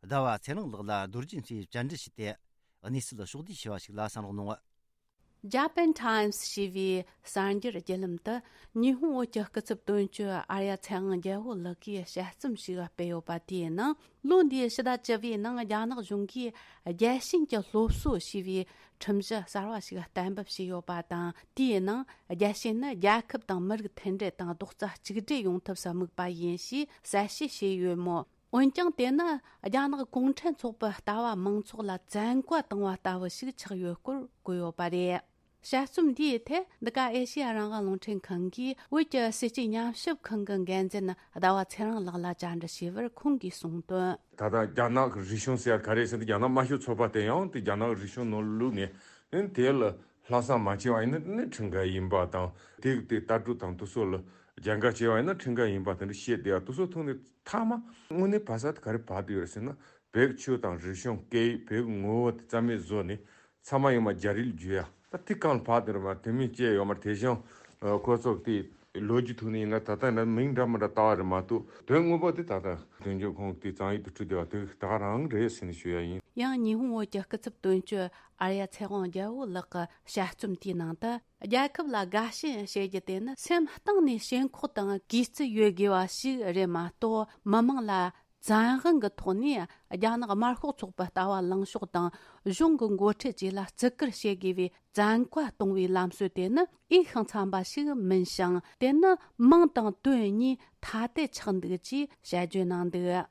ཟླ་བ་ཚེ་རིང་ལགས་ལ་རྡོ་རྗེ་མཚོས་བཅར་འདྲི་བྱས་ཏེ། གནས་ཚུལ་ཕྱོགས་བསྡུས་བྱས་པ་ཞིག་ལ་གསན་རོགས་གནང་། Japan Times ཞེས་པའི་གསར་འགྱུར་བརྒྱུད་ལམ་དུ། ཉི་ཧོང་བོད་ཀྱི་སྐུ་ཚབ་དོན་གཅོད་ཨར་ཡ་ཚེ་དབང་རྒྱལ་པོ་ལགས་ཀྱིས་དཔྱད་རྩོམ་ཞིག་སྤེལ་ཡོད་པ། དེའི་ནང་ལོ་འདིའི་ཕྱི་ཟླ་བཅུ་བའི་ནང་རྒྱ་ནག་གཞུང་གིས་རྒྱལ་ཞེན་གྱི་སློབ་གསོ་ཞེས་པའི་ཁྲིམས་གཞི་གསར་བ་ཞིག་གཏན་འབེབས་བྱས་ཡོད་པ་དང་། དེའི་ནང་རྒྱལ་ཞེན་ནི་རྒྱལ་ཁབ་དང་མི་རིགས་མཐུན་སྒྲིལ་དང་རྡོག་རྩ་གཅིག་སྒྲིལ་ཡོང་ཐབས་སུ་དམིགས་པ་ཡིན་ཞེས་གསལ་བཤད་བྱས་ཡོད་མོད། འོན་ཀྱང་། དེ་ནི་རྒྱ་ནག་གུང་ཁྲན་ཚོགས་པའི་ལྟ་བ་མང་ཚོགས་ལ་བཙན་བཀའ་བཏང་བ་ལྟ་བུ་ཞིག་ཆགས་ཡོད་སྐོར་བཀོད་ཡོད་པ་རེད། དཔྱད་རྩོམ་འདིའི་ཐད། འདི་ག་ཨེ་ཤེ་ཡ་རང་དབང་རླུང་འཕྲིན་ཁང་གིས་བོད་ཀྱི་སྲིད་བྱུས་ཉམས་ཞིབ་ཁང་གི་འགན་འཛིན་ཟླ་བ་ཚེ་རིང་ལགས་ལ་བཅར་འདྲི་བྱས་པར། ཁོང་གིས་གསུངས་དོན། ད་ལྟ་རྒྱ་ནག་གི་རིག་གཞུང་ཟེར་ཡ་ག་རེ་ཟེར་ན། རྒྱ་ནག་དམར་ཤོག་ཚོགས་པ་དེ་ཡང་དེ་རྒྱ་ནག་གི་རིག་གཞུང་ནང་བླུགས་ནས། ཨེ་དེ་ལ་ལྷག་བསམ་མ་བྱས་པ་ཡིན་ན་ནི་ཁྲིམས་འགལ་ཡིན་པ་དང་། དེ་དེ་ལྟ་གྲུབ་དང་དེ་ཚོ་ལ་རྒྱབ་འགལ་བྱས་པ་ཡིན་ན་ཁྲིམས་འགལ་ཡིན་པ་དེ་འདྲ་བཤད་བསྡད་ཡ། དེ་ཚོ་ཐོག་ནས་མཐའ་མ་དངོས་གནས་བབས་ས་དེ་ག་རེ་བབས་བསྡད་ཡོད་ཟེར་ན། བོད་ཀྱི་ཆོས་དང་རིག་གཞུང་། སྐད་ཡིག། བོད་ཀྱི་ངོ་བོ་དེ་རྩ་མེད་བཟོས་ནས། ཚང་མ་ཡོང་མ་རྒྱ་རིགས་ལ་བསྒྱུར་ཡ། ད་དེ་གང་ལ་བབས་བསྡད་རེད་མ། དེ་མིན་བཅས་ཡོད་མ་རེད། དེ་བཞིན་ཁོ་ཚོ་དེ་ལོ་རྒྱུས་ཐོག་ནས་ཡིན་ན་ད་ལྟ་ཡིན་ན་མིང་འདྲ་མི་འདྲ་བཏགས་པ་རེད་མ་གཏོགས། དོན་དངོས་པོ་དེ་ད་ལྟ་དོན་གཅོད་ཁོང་དེ་བཙན་བྱོལ་དུ་ཁྲིད་བསྡད་པ་དེ་ད་ག་རང་རེད་ཟེར་ནས་ཞུ་ཡ་ཡིན། ཡང་ཉི་ཧོང་བོད་ཀྱི་སྐུ་ཚབ་དོན་གཅོད་ཨར་ཡ་ཚེ་དབང་རྒྱལ་པོ་ལགས་ཀྱི་དཔྱད་རྩོམ་དེའི་ནང་དུ། རྒྱལ་ཁབ་ལ་དགའ་ཞེན་བྱེད་རྒྱུ་དེ་ནི་སེམས་གཏིང་ནས་ཞེན་ཁོག་དང་གུས་བརྩི་ཡོད་དགོས་པ་ཞིག་རེད་མ་གཏོགས། མི་མང་ལ་བཙན་དབང་གི་ཐོག་ནས་རྒྱ་ནག་དམར་ཤོག་ཚོགས་པའི་ལྟ་བ་ལངས་ཕྱོགས་དང་། གཞུང་གི་འགོ་ཁྲིད་བཅས་ལ་བརྩི་བཀུར་བྱེད་དགོས་པའི་བཙན་བཀའ་གཏོང་བའི་ལམ་སྲོལ་དེ་ནི་འོས་ཤིང་འཚམ་པ་ཞིག་མིན་ཞིང་། དེ་ནི་མིང་དང་དོན་གཉིས་ཐ་དད་ཆགས་འདུག་ཅེས་དཔྱད་བརྗོད་གནང་འདུག།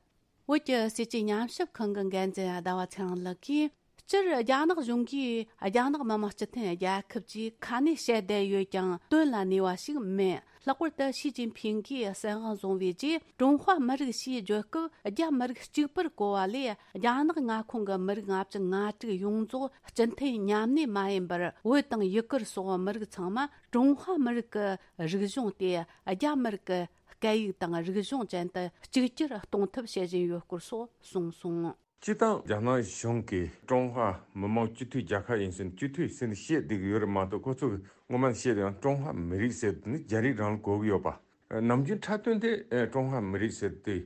བོད་ཀྱི་སྲིད་བྱུས་ཉམས་ཞིབ་ཁང་གི་འགན་འཛིན་ཟླ་བ་ཚེ་རིང་ལགས་ཀྱིས། སྤྱིར་རྒྱ་ནག་གཞུང་གིས་རྒྱ་ནག་མི་དམངས་སྤྱི་མཐུན་རྒྱལ་ཁབ་ཅེས་ཁ་ནས་བཤད་བསྡད་ཡོད་ཀྱང་། དོན་ལ་གནས་པ་ཞིག་མིན། ལྷག་པར་དུ་ཞི་ཅིན་ཕིང་གིས་སྲིད་དབང་བཟུང་བའི་རྗེས། ཀྲུང་ཧྭ་མི་རིགས་ཞེས་བརྗོད་སྐབས། རྒྱ་མི་རིགས་གཅིག་པུར་གོ་བ་ལས། རྒྱ་ནག་མངའ་ཁོངས་ཀྱི་མི་རིགས་ལྔ་བཅུ་ང་དྲུག་ཡོངས་རྫོགས་སྤྱི་མཐུན་མཉམ་གནས་མ་ཡིན་པར། བོད་དང་ཡུ་གུར་སོགས་མི་རིགས་ཚང་མ་ཀྲུང་ཧྭ་མི་རིགས་ཀྱི་རིག་གཞུང་སྟེ། རྒྱ་མི་རིགས་ཀྱི་སྐད་ཡིག་དང་རིག་གཞུང་ཅན་དུ་གཅིག་གྱུར་གཏོང་ཐབས་བྱེད་བཞིན་ཡོད་སྐོར་སོགས་གསུངས་སོང་། སྤྱིར་བཏང་རྒྱ་ནག་གཞུང་གིས་ཀྲུང་ཧྭ་མི་དམངས་སྤྱི་མཐུན་རྒྱལ་ཁབ་ཡིན་ཟེར་ནས། སྤྱི་མཐུན་ཟེར་ནས་བཤད་བསྡད་ཀྱི་ཡོད་རེད་མ་གཏོགས། ཁོ་ཚོ་གིས་སྔོན་མ་ནས་བཤད་བསྡད་ཡོད། ཀྲུང་ཧྭ་མི་རིགས་ཟེར་དེ་ནི་རྒྱ་རིགས་རང་ལ་གོ་གི་ཡོད་པ། ནམ་རྒྱུན་འཁྲབ་སྟོན་དེ་ཀྲུང་ཧྭ་མི་རིགས་ཟེར་དེ་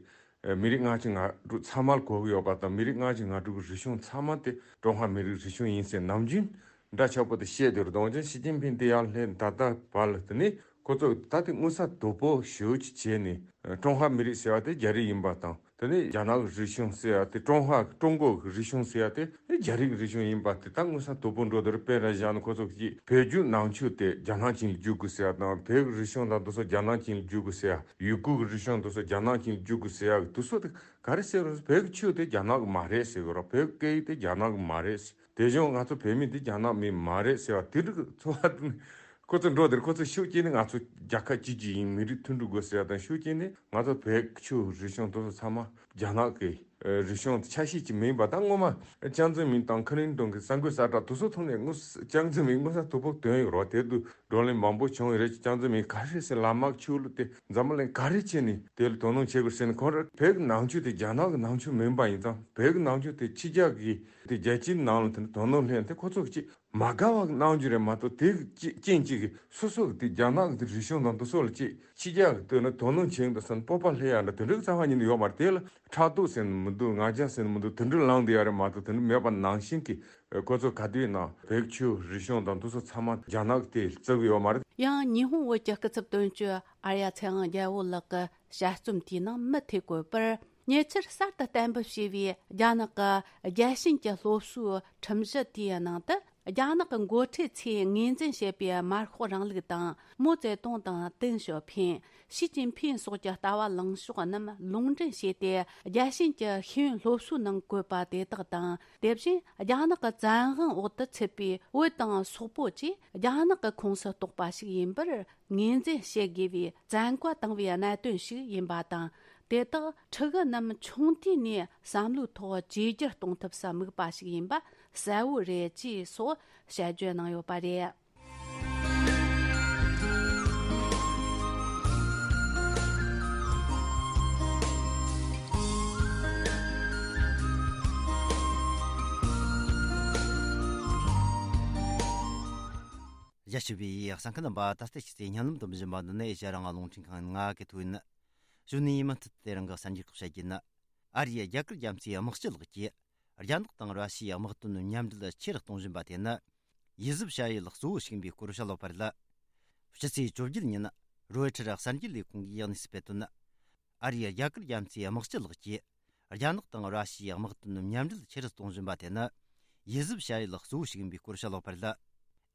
མི་རིགས་ལྔ་བཅུ་ང་དྲུག་ཚང་མ་ལ་གོ་གི་ཡོད་པ་དང་། མི་རིགས་ལྔ་བཅུ་ང་དྲུག་གི་རིག་གཞུང་ཚང་མ་དེ་ཀྲུང་ཧྭ་མི་རིགས་རིག་གཞུང་ཡིན་ཟེར་ནམ་རྒྱུན་འདྲ་ཆགས་པོ་དེ་བཤད་བསྡད་ཡོད་རེད། འོན་ཀྱང་ཞི་ཅིན་ཕིང་དེ་ཡར་སླེབས་ད་ལྟ་བར་ལ། དེ་ནི་ཁོ་ཚོ་ད་དེ་མངོན་གསལ་དོད་པོ་ཞེ་པོ་ཅིག་བྱས་ནས། ཀྲུང་ཧྭ་མི་རིགས་ཟེར་བ་དེ་རྒྱ་རིགས་ཡིན་པ་དང་། དེ་ནས་རྒྱ་ནག་གི་རིག་གཞུང་ཟེར་ཡ་དེ། ཀྲུང་ཧྭ་ཀྲུང་གོ་གི་རིག་གཞུང་ཟེར་ཡ་དེ་རྒྱ་རིགས་ཀྱི་རིག་གཞུང་ཡིན་པ་དེ་ད་མངོན་གསལ་དོད་པོ་འགྲོ་བསྡད་རེད། དཔེར་ན་བཞག་ན། ཁོ་ཚོ་གིས་བོད་བརྒྱུད་ནང་ཆོས་དེ་རྒྱ་ནག་ཅན་ལ་བསྒྱུར་དགོས་ཟེར་ཡ་དང་། བོད་ཀྱི་རིག་གཞུང་དང་དེ་ཚོ་རྒྱ་ནག་ཅན་ལ་བསྒྱུར་དགོས་ཟེར་ཡ། ཡུ་གུར་གྱི་རིག་གཞུང་དེ་ཚོ་རྒྱ་ནག་ཅན་ལ་བསྒྱུར་དགོས་ཟེར་ཡ། དེ་ཚོ་དེ་ག་རེ་ཟེར་རུང་། བོད་ཀྱི་ཆོས་དེ་རྒྱ་ནག་གི་མ་རེད་ཟེར་གི་རེད། བོད་ཀྱི་སྐད་ཡིག་དེ་རྒྱ་ནག་གི་མ་རེད། དེ་བཞིན་ང་ཚོ་བོད་མི་དེ་རྒྱ་ནག་མི་མ་རེད་ཟེར་བ་དེ་འདྲ་གི་ཚོར་བ་དེ་ནི། ཁོ་ཚོ་འགྲོ་དེར་ཁོ་ཚོ་ཤུགས་སྐྱེས་ནས་ང་ཚོ་རྒྱལ་ཁབ་གཅིག་གཅིག་ཡིན། མི་རིགས་མཐུན་སྒྲིལ་དགོས་ཟེར་ཡ་དང་། ཤུགས་སྐྱེས་ནས་ང་ཚོ་བོད་ཆོས་རིག་གཞུང་དེ་ཚོ་ཚང་མ་རྒྱ་ནག་གི་ཨ་རིག་གཞུང་ཆ་ཤས་ཅིག་མིན་པ་དང་། སྔོན་མ་ཅང་ཙེ་མིན་དང་ཁི་ལིན་ཏོན་གྱི་གསར་འགོད་གསལ་བསྒྲགས་དེ་ཚོ་ཐོག་ནས་དངོས་སུ་ཅང་ཙེ་མིན་དངོས་སུ་དོ་ཕོག་བཏོན་ཡོད་རེད། དེ་དུས་བགྲོ་གླེང་མང་པོ་བྱུང་ཡོད་རེད། ཅང་ཙེ་མིན་ག་རེ་ཟེར། ལམ་དམག་ཆོས་ལུགས་དེ་འཛམ་བུ་གླིང་ག་རེ་བྱས་ནས་དེ་ལ་དོ་སྣང་བྱེད་དགོས་ཟེར་ནས། ཁོང་རང་བོད་ཀྱི་ནང་ཆོས་དེ་རྒྱ་ནག་གི་ནང་ཆོས་མིན་པ་ཡིན་ཙང་། བོད་ཀྱི་ནང་ཆོས་དེ་ཕྱི་རྒྱལ་གྱི་དེ་རྒྱལ་སྤྱིའི་ནང་ལ་དེ་འདྲ་དོ་སྣང་སླེབས་ཡ་དེ་ཁོ་ཚོ་གི་ཅིག་མ་དགའ་བ་གནང་རྒྱུ་རེད་མ་གཏོགས། དེ་གི་རྐྱེན་གཅིག་གིས་སོ་སོ་གི་དེ་རྒྱ་ནག་གི་དེ་རིག་གཞུང་དང་དེ་ཚོ་ལ་ཅིག་ཕྱི་རྒྱལ་གི་དོན་ལ་དོ་སྣང་བྱེད་འདུག་བསམ། སྤོབས་པ་སླེབས་ཡ་འདྲ་དེ་འདྲ་གི་རྩ་བ་ཉིད་ནས་ཡོད་མ་རེད། དེ་ལ་ཕྲག་དོག་ཟེར་ནི་མི་འདུག་ང་རྒྱལ་ཟེར་ནི་མི་འདུག་དེ་འདྲ་ལངས་བསྡད་ཡ་རེད་མ་གཏོགས། དེ་འདྲ་མེད་པ་ནང་བཞིན་གྱི་ཁོ་ཚོ་ག་དུས་ཡིན་ན་བོད་ཆོས་རིག་གཞུང་དང་དེ་ཚོ་ཚང་མ་རྒྱ་ནག་གི་དེ་བརྩི་གི་ཡོད་མ་རེད། ཡང་ཉི་ཧོང་བོད་ཀྱི་སྐུ་ཚབ་དོན་གཅོད་ཨར་ཡ་ཚེ་དབང་རྒྱལ་པོ་ལགས་ཀྱི་དཔྱད་རྩོམ་དེའི་ནང་མུ་མཐུད་བཀོད་པར། ཉེ་ཆར་གསར་དུ་གཏན་འབེབས་བྱས་པའི་རྒྱ་ནག་གི་རྒྱལ་ཞེན་གྱི་སློབ་གསོའི་ཁྲིམས་གཞི་དེའི་ནང་དུ། རྒྱ་ནག་གི་འགོ་ཁྲིད་ཚོས་ངོས་འཛིན་བྱེད་པའི་མར་ཤོག་རིང་ལུགས་དང་། མའོ་ཙེ་ཏུང་དང་ཏེང་ཞའོ་ཕིང་། ཞི་ཅིན་ཕིང་སོགས་ཀྱི་ལྟ་བ་ལངས་ཕྱོགས་རྣམས་ལུང་འདྲེན་བྱས་ཏེ། རྒྱལ་ཞེན་གྱི་ཤེས་ཡོན་སློབ་གསོའི་ནང་བཀོད་པ་དེ་དག་དང་། དེ་བཞིན་རྒྱ་ནག་གི་བཙན་དབང་འོག་ཏུ་ཚུད་པའི་བོད་དང་སོག་པོ་བཅས་རྒྱ་ནག་གི་ཁོངས་སུ་གཏོགས་པ་ཞིག་ཡིན་པར་ངོས་འཛིན་བྱེད་དགོས་པའི་བཙན་བཀའ་བཏང་བའི་གནད་དོན་ཞིག་ཡིན་པ་དང་། དེ་དག་ཕྲུ་གུ་རྣམས་ཆུང་དུས་ནས་བསམ་བློའི་ཐོག་བཅོས་བསྒྱུར་གཏོང་ཐབས་སུ་དམིགས་པ་ཞིག་ཡིན་པ་གསལ་བོ་རེད་ཅེས་སོགས་དཔྱད་བརྗོད་གནང་ཡོད་པ་རེད། རྒྱ་ཆེ་བའི་གསན་མཁན་རྣམ་པ། ད་ལྟ་ཕྱི་ཚེས་ཉིན་ལམ་དུ་འབྱིན་པ་འདི་ནི་ཨེ་ཤ་ཡ་རང་དབང་རླུང་འཕྲིན་ཁང་ང་གི་ཐོག་ཡིན། གཞུག་ནས་མུ་མཐུད་དེ་རང་གི་གསར་འགྱུར་ཁག་བཤད་རྒྱུ་ཡིན། ཨ་རིའི་རྒྱ་གར་རྒྱ་མཚོའི་དམག་སྤྱི་ལགས་ཀྱིས་རྒྱ་ནག་དང་ར་ཤི་ཡའི་དམག་དོན་མཉམ་འབྲེལ་ཆེ་རུ་གཏོང་བཞིན་པ་དེ་ནི་ཡིད་གཟབ་བྱ་ཡུལ་གཙོ་བོ་ཞིག་ཡིན་པའི་སྐོར་བཤད་ཡོད་པ་རེད། ཕྱི་ཚེས་བཅོ་བརྒྱད་ཉིན་རོའི་ཊར་གསར་འགྱུར་ལས་ཁུངས་ཀྱིས་གནས་ཚུལ་སྤེལ་དོན། ཨ་རིའི་རྒྱ་གར་རྒྱ་མཚོའི་དམག་སྤྱི་ལགས་ཀྱིས་རྒྱ་ནག་དང་ར་ཤི་ཡའི་དམག་དོན་མཉམ་འབྲེལ་ཆེ་རུ་གཏོང་བཞིན་པ་དེ་ནི་ཡིད་གཟབ་བྱ་ཡུལ་གཙོ་བོ་ཞིག་ཡིན་པའི་སྐོར་བཤད་ཡོད་པ་རེད།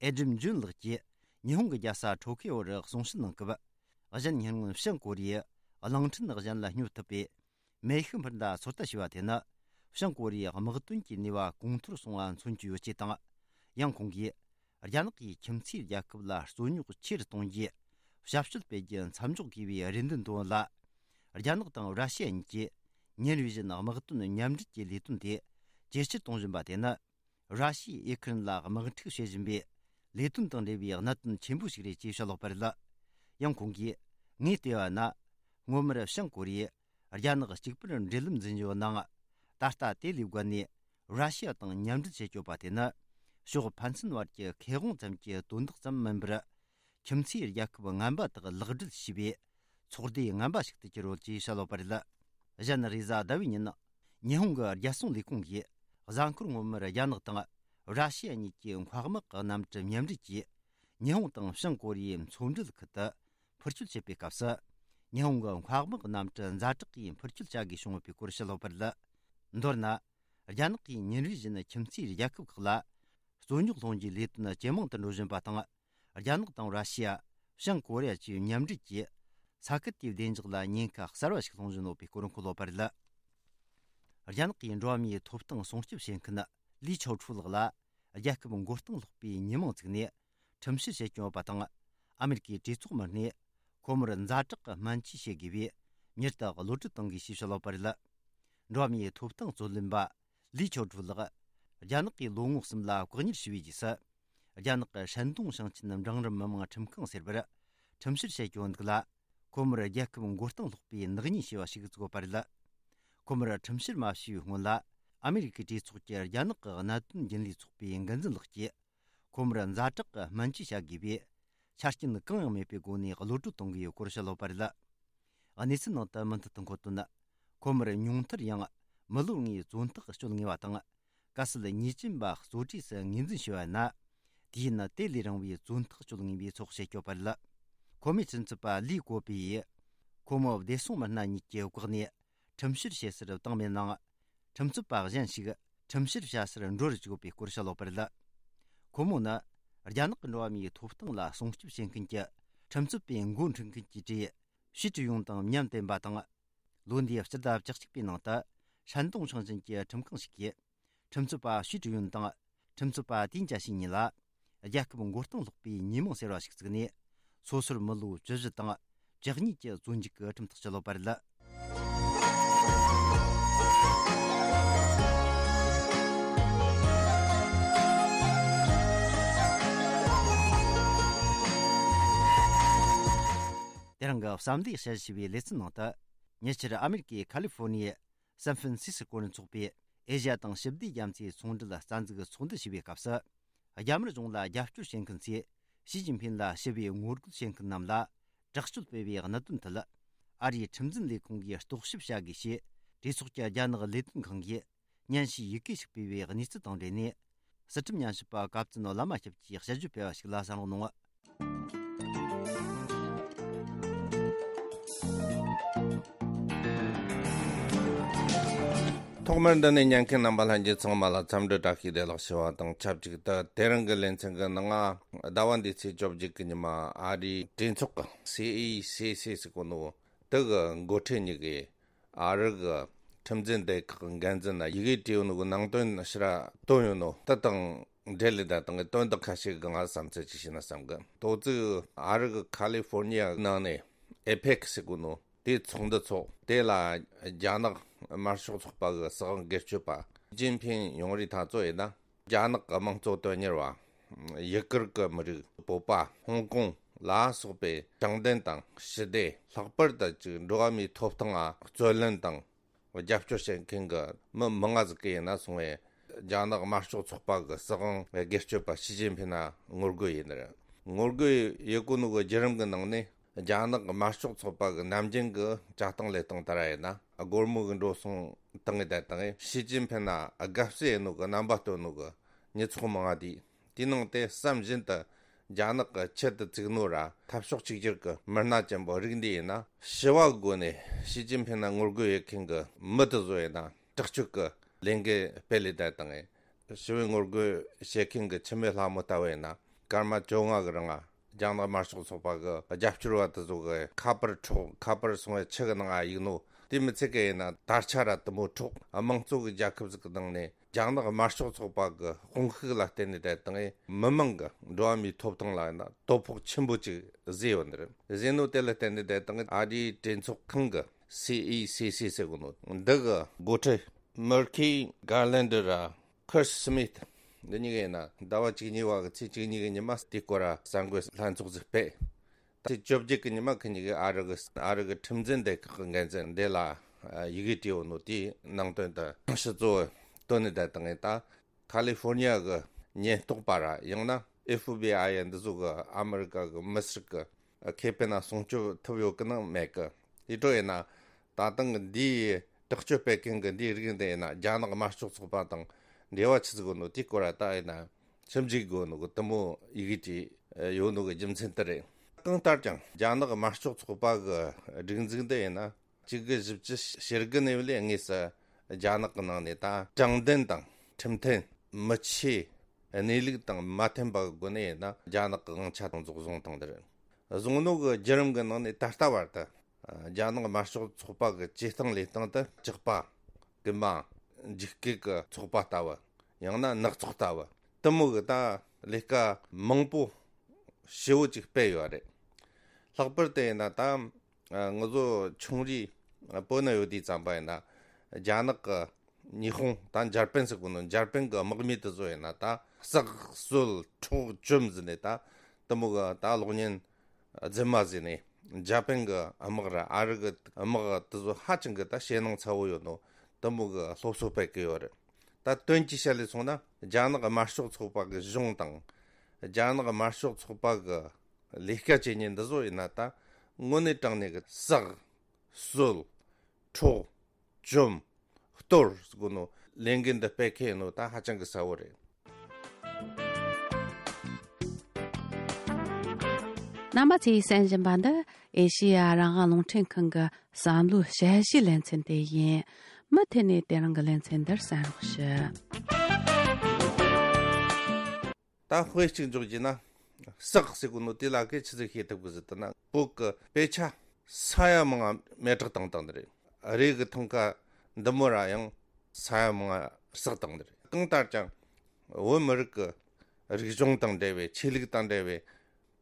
ཨེ་ཌམ་ཇོན་ལགས་ཀྱིས་ཉི་ཧོང་གི་རྒྱལ་ས་ཊོ་ཀི་ཡོ་རུ་གསུང་བཤད་གནང་སྐབས། གཞན་ཉེ་སྔོན་བྱང་ཀོ་རི་ཡས་གླིང་ཕྲན་གཞན་ལ་སྙོབ་ཐུབ་པའི་མེ་ཤུགས་འཕུར་མདའ་ཚོད་ལྟ་བྱས་པ་དེ་ནི། བྱང་ཀོ་རི་ཡའི་དམག་དོན་གྱི་ནུས་པ་གོང་མཐོར་སོང་བ་མཚོན་གྱི་ཡོད་ཅེས་དང་། ཡང་ཁོང་གིས། རྒྱ་ནག་གིས་ཁྱིམ་མཚེས་རྒྱལ་ཁབ་ལ་རྩོད་རྙོག་ཆེ་རུ་གཏོང་རྒྱུའི་ཞབས་ཞུ་སྤེལ་རྒྱུ་མཚམས་འཇོག་དགོས་པའི་རེ་འདུན་བཏོན་ཡོད་ལ། རྒྱ་ནག་དང་ར་ཤི་ཡ་གཉིས་ཀྱིས་ཉིན་རེ་བཞིན་དམག་དོན་མཉམ་འབྲེལ་གྱི་ལས་དོན་དེ་ཇེ་ཆེར་གཏོང་བཞིན་པ་དེ་ནི། ར་ཤི་ཡས་ཨེ་ཁི་རན་ལ་དམག་འཁྲུག་བྱེད་བཞིན་པའི་ལས་དོན་དང་འབྲེལ་བའི་གནད་དོན་ཆེན་པོ་ཞིག་རེད་ཅེས་བཤད་ཡོད་པ་རེད། ཡང་ཁོང་གིས། ངས་བལྟས་པ་ན། སྔོན་མར་བྱང་ཀོ་རི་ཡས་རྒྱ་ནག་གཅིག་པུར་འབྲེལ་ལམ་འཛིན་ཡོད་ནའང་། ད་ལྟ་དེ་ལས་བརྒལ་ནས་ར་ཤི་ཡ་དང་མཉམ་འབྲེལ་བྱེད་སྐྱོད་པ་དེ་ནི། ཕྱོགས་ཕན་ཚུན་བར་གྱི་ཁེ་དབང་ཙམ་གྱི་དོན་དག་ཙམ་མིན་པར། ཁྱིམ་མཚེས་རྒྱལ་ཁབ་ངན་པ་དག་ལག་སྦྲེལ་བྱས་པའི་ཚོགས་སྡེ་ངན་པ་ཞིག་ཏུ་གྱུར་ཡོད་ཅེས་བཤད་ཡོད་པ་རེད། གཞན་རེས་གཟའ་ཟླ་བའི་ཉིན། ཉི་ཧོང་གི་རྒྱལ་སྲུང་ལས་ཁུངས་ཀྱིས་གཟའ་འཁོར་སྔོན་མར་རྒྱ་ནག་དང་ར་ཤི་ཡ་གཉིས་ཀྱི་འཕགས་དམག་གི་གནམ་གྲུ་མཉམ་འབྲེལ་གྱིས། ཉི་ཧོང་དང་བྱང་ཀོ་རི་ཡའི་མཚོ་འབྲེལ་ཁུལ་དུ་འཕུར་སྐྱོད་བྱེད་པའི་སྐབས་སུ། ཉི་ཧོང་གི་འཕགས་དམག་གནམ་གྲུ་ཛ་དྲག་གིས་འཕུར་སྐྱོད་བྱ་དགོས་བྱུང་ཡོད་པའི་སྐོར་བཤད་ཡོད་པ་རེད། མདོར་ན། རྒྱ་ནག་གིས་ཉིན་རེ་བཞིན་ཁྱིམ་མཚེས་རྒྱལ་ཁབ་ཁག་ལ་རྩོད་རྙོག་སློང་རྒྱུའི་ལས་དོན་ཇེ་མང་དུ་འགྲོ་བཞིན་པ་དང་། རྒྱ་ནག་དང་ར་ཤི་ཡ། བྱང་ཀོ་རི་ཡ་བཅས་མཉམ་འབྲེལ་གྱིས་ས་ཁུལ་དེའི་བདེ་འཇགས་ལ་ཉེན་ཁ་གསར་བ་ཞིག་སློང་བཞིན་ཡོད་པའི་སྐོར་འཁོད་ཡོད་པ་རེད། རྒྱ་ནག་གི་འགྲོ་བ་མིའི་ཐོབ་ཐང་སྲུང་སྐྱོབ་བྱེད་མཁན་ལི་ཆའོ་ཁྲུའུ་ལགས་ལ་རྒྱལ་ཁབ་མགོ་རྟིང་སློག་པའི་ཉེས་མིང་བཙུགས་ནས་ཁྲིམས་བཤེར་བྱེད་ཀྱི་ཡོད་པ་དང་། ཨ་མེ་རི་ཀའི་གྲོས་ཚོགས་མི་སྣས་ཁོ་མོར་ཛ་དྲག་གི་སྨན་བཅོས་བྱེད་དགོས་པའི་མྱུར་དུ་གློད་གྲོལ་གཏོང་དགོས་ཞེས་བཤད་ཡོད་པ་རེད། འགྲོ་བ་མིའི་ཐོབ་ཐང་རྩོད་ལེན་པ་ལི་ཆའོ་ཁྲུའུ་ལགས་རྒྱ་ནག་གིས་ལོ་ངོ་གསུམ་ལ་བཀག་ཉར་བྱས་པའི་རྗེས་སུ། རྒྱ་ནག་གི་ཧྲན་ཏུང་ཞིང་ཆེན་འབྲིང་རིམ་མི་དམངས་ཁྲིམས་ཁང་ཟེར་བར་ཁྲིམས་བཤེར་བྱེད་ཀྱི་ཡོད་འདུག་ལ། ཁོ་མོར་རྒྱལ་ཁབ་མགོ་རྟིང་སློག་པའི་ནག་ཉེས་ཞེས་པ་ཞིག་བཙུགས་ཡོད་པ་རེད། ཁོ་མོར་ཁྲིམས་བཤེར་མ་བྱས་པའི་སྔོན་ལ། ཨ་མེ་རི་ཀའི་གྲོས་ཚོགས་ཀྱི་རྒྱ་ནག་གི་གནད་དོན་རྒྱུན་ལས་ཚོགས་པའི་འགན་འཛིན་ལགས་ཀྱིས། ཁོ་མོར་ཛ་དྲག་གི་སྨན་བཅོས་བྱ་དགོས་པའི་ཆ་རྐྱེན་གང་ཡང་མེད་པའི་སྒོ་ནས་གློད་གྲོལ་གཏོང་དགོས་ཡོད་སྐོར་བཤད་ཡོད་པ་རེད། གནས་ཚུལ་ནང་དུ་མུ་མཐུད་དུ་འཁོད་དོན། ཁོ་མོར་ཉུང་མཐར་ཡང་མི་ལོ་ལྔའི་བཙོན་ཐག་གཅོད་ངེས་པ་དང་། གལ་སྲིད་ཉེས་ཅན་པ་གཙོ་གྲས་སུ་ངོས་འཛིན་བྱས་པ་ཡིན་ན། དུས་ཡུན་དེ་ལས་རིང་བའི་བཙོན་ཐག་གཅོད་ངེས་པའི་ཚོགས་བྱེད་སྐྱོད་པ་རེད། ཁོ་མོའི་ཁྲིམས་རྩོད་པ་ལི་གོ་པི་ཡིས། ཁོ་མོ་བདེ་སྲུང་མི་སྣ་གཉིས་ཀྱི་བཀག་ནས་ཁྲིམས་བཤེར་བྱེད་སར་བཏང་མེད་ནའང་། ཁྲིམས་རྩོད་པ་གཞན་ཞིག་ཁྲིམས་བཤེར་བྱ་སར་འགྲོ་རུ་བཅུག་པའི་སྐོར་བཤད་ཡོད་པ་རེད། ཁོ་མོ་ནི་རྒྱ་ནག་གི་འགྲོ་བ་མིའི་ཐོབ་ཐང་ལ་སྲུང་སྐྱོབ་བྱེད་མཁན་གྱི་ཁྲིམས་རྩོད་པའི་འགོ་ཁྲིད་མཁན་གྱི་གྲས་ཞི་ཀྲི་ཡུང་དང་མཉམ་བསྟེན་པ་དང་། ལོ་འདིའི་སྤྱི་ཟླ་བཅུ་གཅིག་པའི་ནང་དུ་ཧྲན་ཏུང་ཞིང་ཆེན་གྱི་ཁྲིམས་ཁང་ཞིག་གིས་ཁྲིམས་རྩོད་པ་ཞི་ཀྲི་ཡུང་དང་ཁྲིམས་རྩོད་པ་ཏིན་ཅཱ་ཞིན་གཉིས་ལ་ རྒྱལ་ཁབ་མགོ་རྟིང་སློག་པའི་ཉེས་མིང་ཟེར་བ་ཞིག་བཙུགས་ནས། སོ་སོར་མི་ལོ་བཅུ་བཞི་དང་བཅུ་གཉིས་ཀྱི་བཙོན་འཇུག་གི་ཁྲིམས་ཐག་བཅད་ཡོད་པ་རེད། དེ་རིང་གི་བསམ་བློའི་དཔྱད་ཞུ་བའི་ལེ་ཚན་ནང་དུ། ཉེ་ཆར་ཨ་མེ་རི་ཀའི་ཁ་ལི་ཧྥོ་ནི་ཡའི་སན་ཧྥན་སི་སི་ཀོ་ནས་འཚོགས་པའི་ཨེ་ཤ་ཡ་དང་ཞི་བདེ་རྒྱ་མཚོའི་ཚོང་འབྲེལ་རྩ་འཛུགས་ཚོགས་འདུ་ཞུ་བའི་སྐབས་སུ། རྒྱ་དམར་གཞུང་ལ་རྒྱབ་སྐྱོར་བྱེད་མཁན་ཚོས་ཞི་ཅིན་ཕིན་ལ་ཞི་བའི་ངོ་རྒོལ་བྱེད་མཁན་རྣམས་ལ་དྲག་སྤྱོད་སྤེལ་བའི་གནད་དོན་ཐད། ཨ་རིའི་ཁྲིམས་འཛིན་ལས་ཁུངས་ཀྱིས་རྟོག་ཞིབ་བྱ་དགོས་ཞེས་གྲོས་ཚོགས་ཀྱི་རྒྱ་ནག་ལས་དོན་ཁང་གིས་སྙན་ཞུའི་ཡི་གེ་ཞིག་སྤེལ་བའི་གནས་ཚུལ་དང་འབྲེལ་ནས། སྲིད་ཁྲིམས་ཉམས་ཞིབ་པ་ཀབ་ཙུན་བླ་མ་སྐྱབས་ཀྱིས་དཔྱད་བརྗོད་སྤེལ་བ་ཞིག་ལ་གསན་རོགས་གནང་། ཐོག་མར་འདི་ནས་ཉན་མཁན་རྣམ་པ་ལྷན་རྒྱས་ཚང་མ་ལ་འཚམས་འདྲི་བཀྲ་ཤིས་བདེ་ལེགས་ཞུ་བ་དང་ཆབས་ཅིག་ཏུ། དེ་རིང་གི་ལེ་ཚན་གྱི་ནང་ང་ཟླ་བ་འདིའི་ཚེས་བཅོ་བརྒྱད་ཀྱི་ཉི་མ་ཨ་རིའི་གྲོས་ཚོགས་ཀྱི་སི་ཨི་སི་སི་ཟེར་གོ་ནོ་དེ་གི་འགོ་ཁྲིད་གཉིས་ཀྱིས་ཨ་རི་གི་ཁྲིམས་འཛིན་སྡེ་ཁག་གི་འགན་འཛིན་ལ་ཡི་གེ་བྲིས་ཡོད་ནོ་གི་ནང་དོན་ཕྱིར་ར་བཏོན་ཡོད་ནོ་དེ་དང་འབྲེལ་ལས་ད་དང་གི་དོན་དག་ཁ་ཤས་གི་ང་བསམ་ཚུལ་ཅིག་བཤད་ན་བསམ་གི། དོ་ཚིགས་ཨ་རི་གི་ཁ་ལི་ཧྥོར་ནི་ཡ་ནང་ནས་ཨེ་པེག་ཟེར་གོ་ནོ་དེའི་ཚོགས་འདུ་ཚོགས། དེ་ལ་རྒྱ་ནག་དམར་ཤོག་ཚོགས་པ་གི་སྲིད་དབང་སྒེར་གཅོད་པ་ཞི་ཅིན་ཕིན་ཡོང་རེས་ཐག་གཅོད་ཡིན་ན། རྒྱ་ནག་གི་དམངས་གཙོ་དོན་གཉེར་བ། ཡུ་གུར་གྱི་མི་རིགས། བོད་པ། ཧོང་ཀོང་ལ་སོགས་པའི་དྲང་བདེན་དང་ཞི་བདེ། ལྷག་པར་དུ་ཅིག་འགྲོ་བ་མིའི་ཐོབ་ཐང་ལ་རྩོད་ལེན་དང་རྒྱབ་སྐྱོར་བྱེད་མཁན་གྱི་མི་མང་ང་ཟིག་གི་ཡིན་ན་སོང་བས། རྒྱ་ནག་དམར་ཤོག་ཚོགས་པ་གི་སྲིད་དབང་སྒེར་གཅོད་པ་ཞི་ཅིན་ཕིན་ན་ངོ་རྒོལ་ཡིན་ནི་རེད། ངོ་རྒོལ་ཡེད་གོ་ནོ་གི་བརྒྱུད་རིམ་གི་ནང་ནས། རྒྱ་ནག་དམར་ཤོག་ཚོགས་པ་གི་ནམ་རྒྱུན་གི་བྱ་སྟངས་ལས་སྟངས་ལྟར་ཡིན་ན། སྒོར་མོ་གི་འགྲོ་སོང་བཏང་ངེ་བསྡད་བཏང་ངེ་ཞི་ཅིན་ཕིན་ན་དགའ་བསུ་ཡེད་ནོ་གི་རྣམ་པ་སྟོན་ནོ་གི་མི་ཚོགས་མང་ང་དེ། དེའི་ནང་དེ་བསམ་བཞིན་དུ་རྒྱ་ནག་གི་ཆེད་དུ་བཙུགས་ནོ་ར་འཐབ་ཕྱོགས་གཅིག་གྱུར་གི་མི་སྣ་ཅན་པོ་རིགས་འདི་ཡིན་ན། ཞི་བ་སྒོ་ནས་ཞི་ཅིན་ཕིན་ན་ངོ་རྒོལ་ཡེད་མཁན་གི་མི་དེ་ཚོ་ཡིན་ན་དྲག་སྤྱོད་གི་ལས་འགུལ་སྤེལ་ལེ་བསྡད་བཏང་ངེ། ཞི་བའི་ངོ་རྒོལ་བྱེད་མཁན་གྱི་འཆི་མེད་ལྷ་མོ་ལྟ་བུ་ཡིན་ན། སྐར་མ་བཅོ་ལྔ་གི་རིང་ང་རྒྱ་ནག་དམར་ཤོག་ཚོགས་པ་གི་རྒྱབ་སྐྱོར་བ་དེ་ཚོ་གི་ཁ་པར་འཕྲོག་ཁ་པར་སོང་བའི་ཆུ་གི་ནང་ང་གཡུག་ནོ། དེ་མི་ཚད་གི་ཡིན་ན་དར་ཆ་ར་དེ་མོ་འཕྲོག་དམངས་གཙོ་གི་རྒྱལ་ཁབ་ཟིག་གི་ནང་ནས་རྒྱ་ནག་དམར་ཤོག་ཚོགས་པ་གི་དཔུང་ཤུགས་ལ་བརྟེན་ནས་བསྡད་བཏང་ངེ་མི་མང་གི་འགྲོ་བ་མིའི་ཐོབ་ཐང་ལ་ཡིན་ན་དོ་ཕོག་ཆེན་པོ་ཅིག་བཟོས་ཡོད་ནི་རེད། བཟོས་ནོ་དེ་ལ་བརྟེན་ནས་བསྡད་བཏང་ངེ་ཨ་རིའི་གྲོས་ཚོགས་ཁང་གི་སི་ཨི་སི་སི་ཟེར་གོ་ནོ་འདི་གི་འགོ་ཁྲིད་མར་ཁི་གར་ལན་ཌར་ར་ཁར་སི་མིད། འདི་གཉིས་ཀ་ཡིན་ན་ཟླ་བ་བཅུ་གཉིས་པ་གི་ཚེས་བཅུ་གཉིས་གི་ཉི་མ་དེ་སྐོར་ར་གསར་འགོད་ལྷན་ཚོགས་ཟིག་སྤེལ། ད་ཚེས་བཅོ་བརྒྱད་གི་ཉི་མ་ཁི་གཉིས་ཀས་ཨ་རི་གི་ཨ་རི་གི་ཁྲིམས་འཛིན་སྡེ་ཁག་གི་འགན་འཛིན་འདི་ལ་ཡི་གེ་བྲིས་ཡོད་ནོ་དེའི་ནང་དོན་དུ་ཕྱི་གཙོ་བོ་བཏོན་ནས་བསྡད་བཏང་ངེ་ད། ཁ་ལི་ཧྥོར་ནི་ཡ་གི་ཉེན་རྟོག་པ་ར་ཡང་ན་ཨེ་ཧྥི་བྷི་ཨའི་འདི་ཚོ་གི་ཨ་མི་རི་ཀ་གི་མི་སེར་གི་ཁེ་ཕན་ལ་སྲུང་སྐྱོབ་ཐུབ་ཡོད་གི་ནང་མེད་གི། དེ་འཕྲོ་ཡིན་ན་ད་ཐེངས་འདིའི་དྲག་སྤྱོད་སྤེལ་མཁན་གི་འདིའི་རིགས་འདི་ཡིན་ན་རྒྱ་ནག་དམར་ཤོག་ཚོགས་པ་དང་འབྲེལ་བ་ཆི་ཟིག་ཡོད་ནོ་དེའི་སྐོར་ལ་ད་ཡིན་ན་ཞིབ་འཇུག་དགོས་ནོ་གི་དེ་མོ་ཡི་གེ་བྲིས་ཡོད་ནོ་གི་རྒྱུ་མཚན་དེ་རེད། གང་ལྟར་ཀྱང་རྒྱ་ནག་དམར་ཤོག་ཚོགས་པ་གི་སྒྲིག་འཛུགས་འདི་ཡིན་ན། གཅིག་དགུ་བཞི་བཅུ་ཞེ་དགུ་ནས་བླངས་དངོས་སུ་རྒྱ་ནག་གི་ནང་ནས་ད་དྲང་བདེན་དང་ཁྲིམས་མཐུན་མི་ཆོས་གནས་ལུགས་དང་མ་མཐུན་པ་གི་སྒོ་ནས་ཡིན་ན་རྒྱ་ནག་གི་དབང་ཆ་དང་ཚོགས་བཟུང་བཏང་འདིར་བཟུང་ནོ་གི་བརྒྱུད་རིམ་གི་ནང་ནས་ད་ལྟ་བར་དུ་རྒྱ་ནག་དམར་ཤོག་ཚོགས་པ་གི་བྱེད་སྟངས་ལས་སྟངས་དེ་ཇག་པ་རྐུན་མ་འཇིགས་སྐུལ་གི་ཚོགས་པ་ལྟ་བུ། ཡང་ན་ནག་ཚོགས་ལྟ་བུ་དེ་མོ་གི་ད་ལས་ཀ་མང་པོ་ཞེ་བོ་ཅིག་སྤེལ་ཡོད་རེད། ལྷག་པར་དུ་ཡིན་ན་ད་ང་ཚོ་ཆུང་རིགས་བོད་ན་ཡོད་དུས་ཙམ་པ་ཡིན་ན་རྒྱ་ནག་གི་ཉི་ཧོང་ད་འཇར་པན་ཟེར་གོ་ནོ་འཇར་པན་གི་དམག་མི་དེ་ཚོ་ཡིན་ན་ད་བསགས་གསོད་འཕྲོག་བཅོམ་ཟེར་ནས་ད་དེ་མོ་གི་ད་གློག་བརྙན་རྫུན་མ་ཟེར་ནས་འཇར་པན་གི་དམག་ར་ཨ་རི་གི་དམག་དེ་ཚོ་ཧ་ཅང་གི་ད་ཞེད་སྣང་ཚ་བོ་ཡོད་ནོ་དེ་མོ་གི་སློབ་གསོ་སྤེལ་གི་ཡོད་རེད། ད་དོན་གྱིས་བཤད་ལས་སོང་ན་རྒྱ་ནག་དམར་ཤོག་ཚོགས་པ་གི་གཞུང་དང་རྒྱ་ནག་དམར་ཤོག་ཚོགས་པ་གི་ལས་ཀ་བྱེད་མཁན་འདི་ཚོ་ཡིན་ན་ད་དངོས་གནས་དྲང་གནས་ཀྱི་བསགས་གསོད་འཕྲོག་བཅོམ་གཏོར་ཟེར་གོ་ནོ་ལས་འགན་འདི་སྤེལ་མཁན་ཡིན་ནོ་ད་ཧ་ཅང་གི་གསལ་བོ་རེད། རྣམ་པ་ཚོས་གསན་བཞིན་པ་འདི་ཨེ་ཤེ་ཡ་རང་དབང་རླུང་འཕྲིན་ཁང་གི་བསམ་བློའི་དཔྱད་གཞིའི་ལེ་ཚན་དེ་ཡིན། མུ་མཐུད་ནས་དེ་རིང་གི་ལེ་ཚན་འདིར་གསན་རོགས་ཞུ། ད་དཔེ་གཅིག་འཇོག་རྒྱུ་ན། བསགས་ཟེར་གོ་ནོ་དེ་ལ་གི་ཆི་ཟིག་ཤེས་ཐུབ་གི་ཟེར་ད་ན་བོད་གི་དཔེ་ཆ་ས་ཡ་མང་ང་མེ་སྲེག་བཏང་བཏང་ནི་རེད། རས་གི་ཐང་ཀ་འདི་མོ་ར་ཡང་ས་ཡ་མང་ང་བསགས་བཏང་ནི་རེད། གང་ལྟར་ཀྱང་བོད་མི་རིགས་གི་ རིག་གཞུང་དང་འབྲེལ་བའི་ཆོས་ལུགས་དང་འབྲེལ་བའི་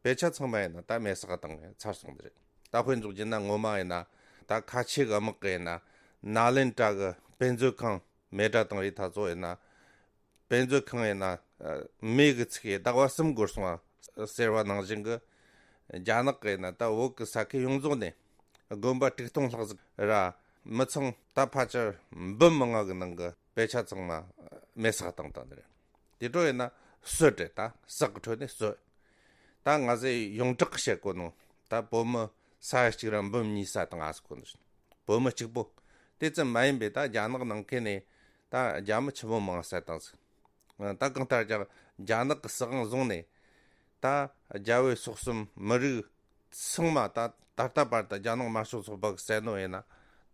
དཔེ་ཆ་ཚང་མ་ཡིན་ན་ད་མེ་སྲེག་བཏང་ཚར་སོང་ནི་རེད། ད་དཔེ་འཇོག་རྒྱུ་ན་ངོ་མ་ཡིན་ན་ད་ཁ་ཆེ་གི་དམག་གི་ཡིན་ན་ནཱ་ལེནྡྲ་གི་དཔེ་མཛོད་ཁང་མེ་དགྲ་བཏང་བའི་ཐ་ཚོ་ཡིན་ན། དཔེ་མཛོད་ཁང་ཡིན་ན་མེ་གི་ཚིག་གིས་ཟླ་བ་གསུམ་འགོར་སོང་བ་ཟེར་བ་ནང་བཞིན་གི། རྒྱ་ནག་གི་ཡིན་ན་ད་བོད་གི་ས་ཁུལ་ཡོངས་རྫོགས་ནས་དགོན་པ་དྲུག་སྟོང་ལྷག་ཟིག་ར་མི་ཚང་ད་ཕལ་ཆེར་འབུམ་མང་ང་གི་ནང་གི་དཔེ་ཆ་ཚང་མ་མེ་སྲེག་བཏང་བཏང་ནི་རེད། དེ་འཕྲོ་ཡིན་ན་གསོད་རེད། ད་སྲེག་གི་ཁྲོད་ནས་གསོད། ད་ང་ཚོས་ཡོངས་གྲགས་བཤད་གོ་ནོ་ད་བོད་མི་ས་ཡ་གཅིག་ར་འབུམ་གཉིས་ས་བཏང་ང་ཟེར་གོ་ནོ། བོད་མི་གཅིག་པོ། དེ་ཙམ་མ་ཡིན་པའི་ད་རྒྱ་ནག་ནང་ཁུལ་ནས་ད་རྒྱ་མི་ཆི་མོ་མང་ས་བཏང་ཟིག། ད་གང་ལྟར་ཀྱང་རྒྱ་ནག་གི་སྲིད་དབང་བཟུང་ནས་ད་རྒྱ་བོད་སོག་གསུམ་མི་རིགས་ཚང་མ་ད་ད་ལྟ་བར་དུ་རྒྱ་ནག་དམར་ཤོག་ཚོགས་པ་གི་བསད་ནོ་ཡིན་ན་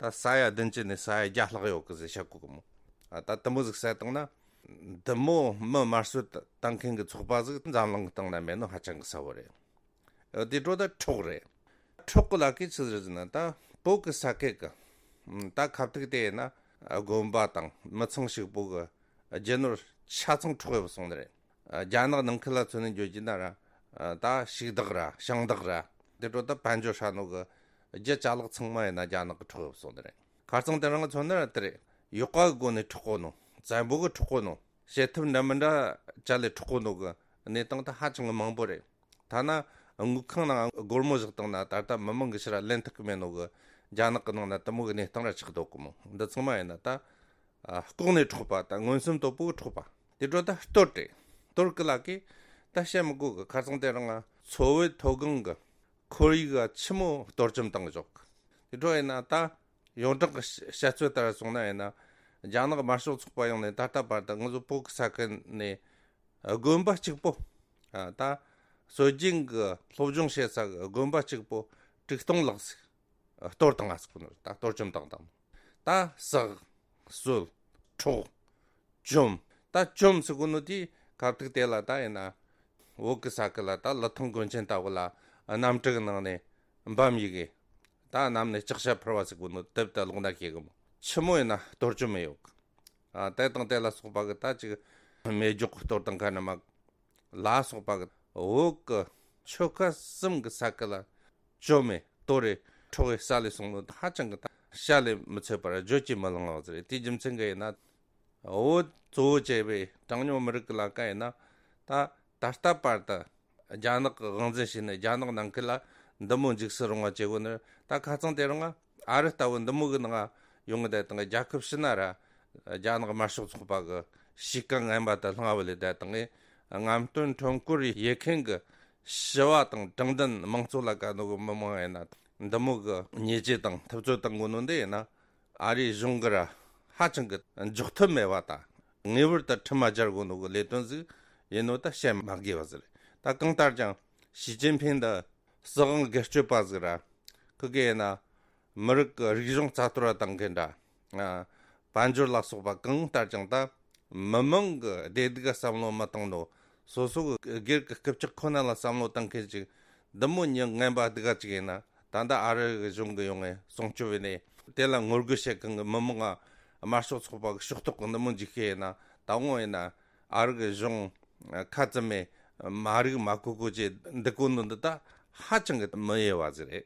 ད་ས་ཡ་བདུན་ཅུ་ནས་ས་ཡ་བརྒྱ་ལྷག་ཡོད་གི་ཟེར་བཤད་གོ་གི་མོ། ད་དེ་མོ་ཟིག་བསད་བཏང་ན་འདི་མོ་མི་དམར་གསོད་བཏང་མཁན་གི་ཚོགས་པ་ཟིག་འཛམ་གླིང་གི་སྟེང་ན་མེད་ནོ་ཧ་ཅང་གི་གསལ་བོ་རེད། དེ་འཕྲོ་ད་འཕྲོག་རེད། འཕྲོག་གི་ལ་ཁའི་ཆི་ཟིག་ཟེར་ན་ད་བོད་གི་ས་ཁུལ་གི་ད་ཁ་ཐུག་དེ་ཡིན་ན་དགོན་པ་དང་མི་ཚང་ཞིག་པོ་གི་རྒྱུ་ནོར་ཆ་ཚང་འཕྲོག་ཡོད་སོང་ནི་རེད། རྒྱ་ནག་ནང་ཁུལ་ལ་མཚོན་ནས་འཇོག་རྒྱུ་ན་ར་ད་ཞིག་བདག་ར་ཞིང་བདག་ར་དེ་འཕྲོ་ད་དཔལ་འབྱོར་ཧྲ་ནོ་གི་རྒྱུ་ཅ་ལག་ཚང་མ་ཡིན་ན་རྒྱ་ནག་གི་འཕྲོག་ཡོད་སོང་ནི་རེད། ཁ་རྩང་དེ་རང་གི་མཚོན་ན་ར་དེ་རེད། ཡོག་ག་གི་སྒོ་ནས་འཕྲོག་གོ་ནོ། བཙན་པོ་གི་འཕྲོག་གོ་ནོ། བྱེད་ཐབས་འདྲ་མི་འདྲ་ཅ་ལས་འཕྲོག་གོ་ནོ་གི་གནས་སྟངས་ད་ཧ་ཅང་གི་མང་པོ་རེད། ཐ་ན་དངུལ་ཁང་ནང་སྒོར་མོ་བཞག་བཏང་ན་ད་ལྟ་མི་མང་གི་ཕྱིར་ལེན་ཐུབ་གི་མེད་ནོ་གི་རྒྱ་ནག་གི་ནང་ན་དེ་མོ་གི་གནས་སྟངས་ར་ཆགས་འདུག་གི་མོ། འདི་ཚང་མ་ཡིན་ན་ད་ཨ་ལྐོག་ནས་འཕྲོག་པ་ད་མངོན་སུམ་དོད་པོ་གི་འཕྲོག་པ། དེ་འཕྲོ་ད་གཏོར་རེད། གཏོར་གི་ལ་གི་ད་བཤད་མི་དགོས་གི། ཁ་རྩང་དེ་རང་ང་མཚོ་བོད་མཐོ་སྒང་གི་ཁོར་ཡུག་ག་ཆི་མོ་གཏོར་བཅོམ་བཏང་གི་འཇོག་གི། དེ་འཕྲོ་ཡིན་ན་ད། ཡོངས་གྲགས་ཀྱི་བཤད་ཚུལ་ལྟར་སོང་ན་ཡིན་ན། རྒྱ་ནག་དམར་ཤོག་ཚོགས་པ་ཡོང་ནས་ད་ལྟ་བར་དུ་ང་ཚོ་བོད་ཀྱི་ས་ཁུལ་ནས་དགོན་པ་གཅིག་པོ། ཨ་ད་སྲོལ་རྒྱུན་གྱི་སློབ་སྦྱོང་བྱེད་ས་གི་དགོན་པ་གཅིག་པོ་དྲུག་སྟོང་ལྷག་ཟིག་གཏོར་བཏང་ང་ཟིག་ནོ། ད་གཏོར་བཅོམ་བཏང་བཏང་ནོ། ད་བསྲེགས། གསོད། འཕྲོག་བཅོམ། ད་བཅོམ་ཟེར་གོ་ནོ་དེ་ཁ་ཐུག་དེ་ལ་ད་ཡིན་ན། བོད་ཀྱི་ས་ཁུལ་ལ་ད་ལི་ཐང་དགོན་ཆེན་ལྟ་བུ་ལ་གནམ་གྲུ་གི་ནང་ནས་འབམ་ཡི་གེ། ད་གནམ་ནས་ལྕགས་ཞྭ་འཕུར་བ་ཟེར་གོ་ནོ་དེབ་ད་ལོག་ན་ཤེས་གི་མོ། ཆི་མོ་ཡིན་ན་གཏོར་བཅོམ་མེ་ཡོད་གི། ཨ་དེ་དང་དེ་ལ་སོགས་པ་གི་ད་ཅིག་མེ་སྒྱོགས་གཏོར་དང་ག་ནི་མ། ལ་སོགས་པ་གི་བོད་ཀྱི་ཆོལ་ཁ་གསུམ་གྱི་ས་ཁུལ་ལ་བཅོམ་མེ་གཏོར་རེ་འཕྲོག་རེ་ས་ལས་སོང་ནོ་ཧ་ཅང་གི་ད་བཤད་ལས་མི་ཚད་པར་བརྗོད་ཀྱིས་མི་ལང་བ་ཟེར་རེད། དེའི་རྒྱུ་མཚན་གྱིས་ཡིན་ན། བོད་གཙོ་བོ་བྱས་པའི་གྲངས་ཉུང་མི་རིགས་ཀྱི་ལ་ཀ་ཡིན་ན། ད་ད་ལྟ་བར་དུ་རྒྱ་ནག་གི་དབང་འཛིན་བྱས་ནས་རྒྱ་ནག་ནང་ཁུལ་ལ་འདི་མོ་འཇིགས་སུ་རུང་བ་བྱེད་དགོས་ནི། ད་ཁ་རྩང་དེ་རིང་ཨ་རི་ལྟ་བུ་འདི་མོ་གི་ནང་ཡོང་གི་བསྡད་དང་རྒྱལ་ཁབ་ཕྱི་ན་ར་རྒྱ་ནག་དམར་ཤོག་ཚོགས་པ་གི་གཤིས་ཀ་ངན་པ་དུ་ལྷང་བ་ལས་བསྡད་དང་། རྔམ་སྟོན་ཁྲོམ་སྐོར་ཡེ་མཁན་གི་ཞི་བ་དང་དྲང་བདེན་མང་གཙོ་ལ་དགའ་ནོ་གི་མི་མང་ཡིན་ན་འདི་མོ་གི་ཉེས་ཆད་དང་ཐུབ་ཚོད་བཏང་དགོས་ནོ་འདི་ཡིན་ན། ཨ་རིའི་གཞུང་གི་ར་ཧ་ཅང་གི་འཇོག་ཐུབ་མེད་པ་དང་ངེས་པར་དུ་ཁྲིམས་མ་སྦྱར་དགོས་ནོ་གི་ལས་དོན་ཟིག་ཡིན་ནོ་ད་བཤད་མ་དགོས་པ་ཟིག་རེད། ད་གང་ལྟར་ཀྱང་ཞི་ཅིན་ཕིང་འདི་སྲིད་དབང་སྒེར་གཅོད་པ་ཟིག་ར། ཁི་གེ་ཡིན་ན་མི་རིགས་ཀྱི་རིག་གཞུང་རྩ་གཏོར་བ་བཏང་མཁན་འདྲ། ཨ་དཔལ་འབྱོར་ལ་སོགས་པ་གང་ལྟར་ཀྱང་ད་མི་མང་གི་བདེ་སྡུག་ག་བསམ་བློ་མི་བཏང་ནོ། སོ་སོ་གི་སྒེར་གྱི་སྐུ་ཕྱག་ཁོ་ན་ལ་བསམ་བློ་བཏང་མཁན་ཅིག་འདི་མོ་མྱི་ངན་པ་སྡུག་ག་ཅིག་ཡིན་ན། ད་ལྟ་ཨ་རི་གི་གཞུང་གི་ཡོང་ངས་སྲུང་སྐྱོབ་བྱས་ནས་དེ་ལ་ངོ་རྒོལ་བྱེད་མཁན་གི་མི་མང་ང་དམར་ཤོག་ཚོགས་པ་གི་ཕྱོགས་གཏོགས་གི་འདི་མོ་འཇིགས་ཤེས་ཡིན་ན། ད་འོང་ཡིན་ན་ཨ་རི་གི་གཞུང་ཁ་ཙམ་མེད་མ་རིག་མ་གོ་གོ་ཅེས་འདི་གོ་ནོ་འདི་ད་ཧ་ཅང་གི་མི་འོས་པ་ཟིག་རེད།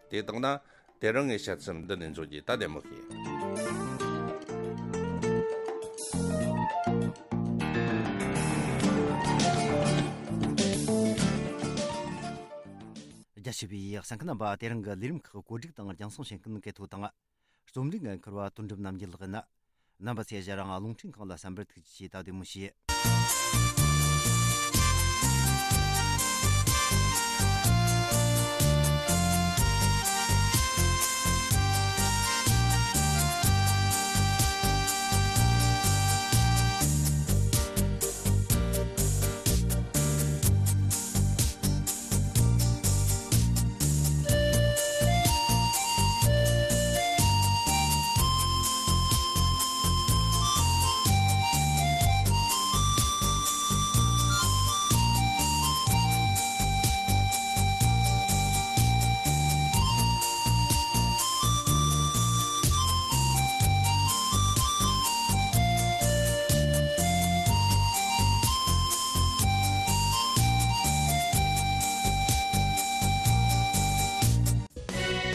དེ་དང་ན་དེ་རིང་ངས་བཤད་ཚུལ་འདི་ནས་འཇོག་རྒྱུ་ད་བདེ་མོ་ཤེས། རྒྱ་ཆེ་བའི་གསན་མཁན་རྣམ་པ། དེ་རིང་གི་ལས་རིམ་ཁག་གོ་སྒྲིག་དང་རྒྱང་སྲིང་བྱེད་མཁན་གལ་ཐོ་དང་། རྩོམ་སྒྲིག་འགན་འཁུར་བ་དོན་གྲུབ་རྣམ་རྒྱལ་ལགས་ཡིན། རྣམ་པ་ཚོས་ཞལ་རང་རླུང་འཕྲིན་ཁང་ལ་གསན་པར་ཐུགས་རྗེ་ཆེ། ད་བདེ་མོ་བྱོས།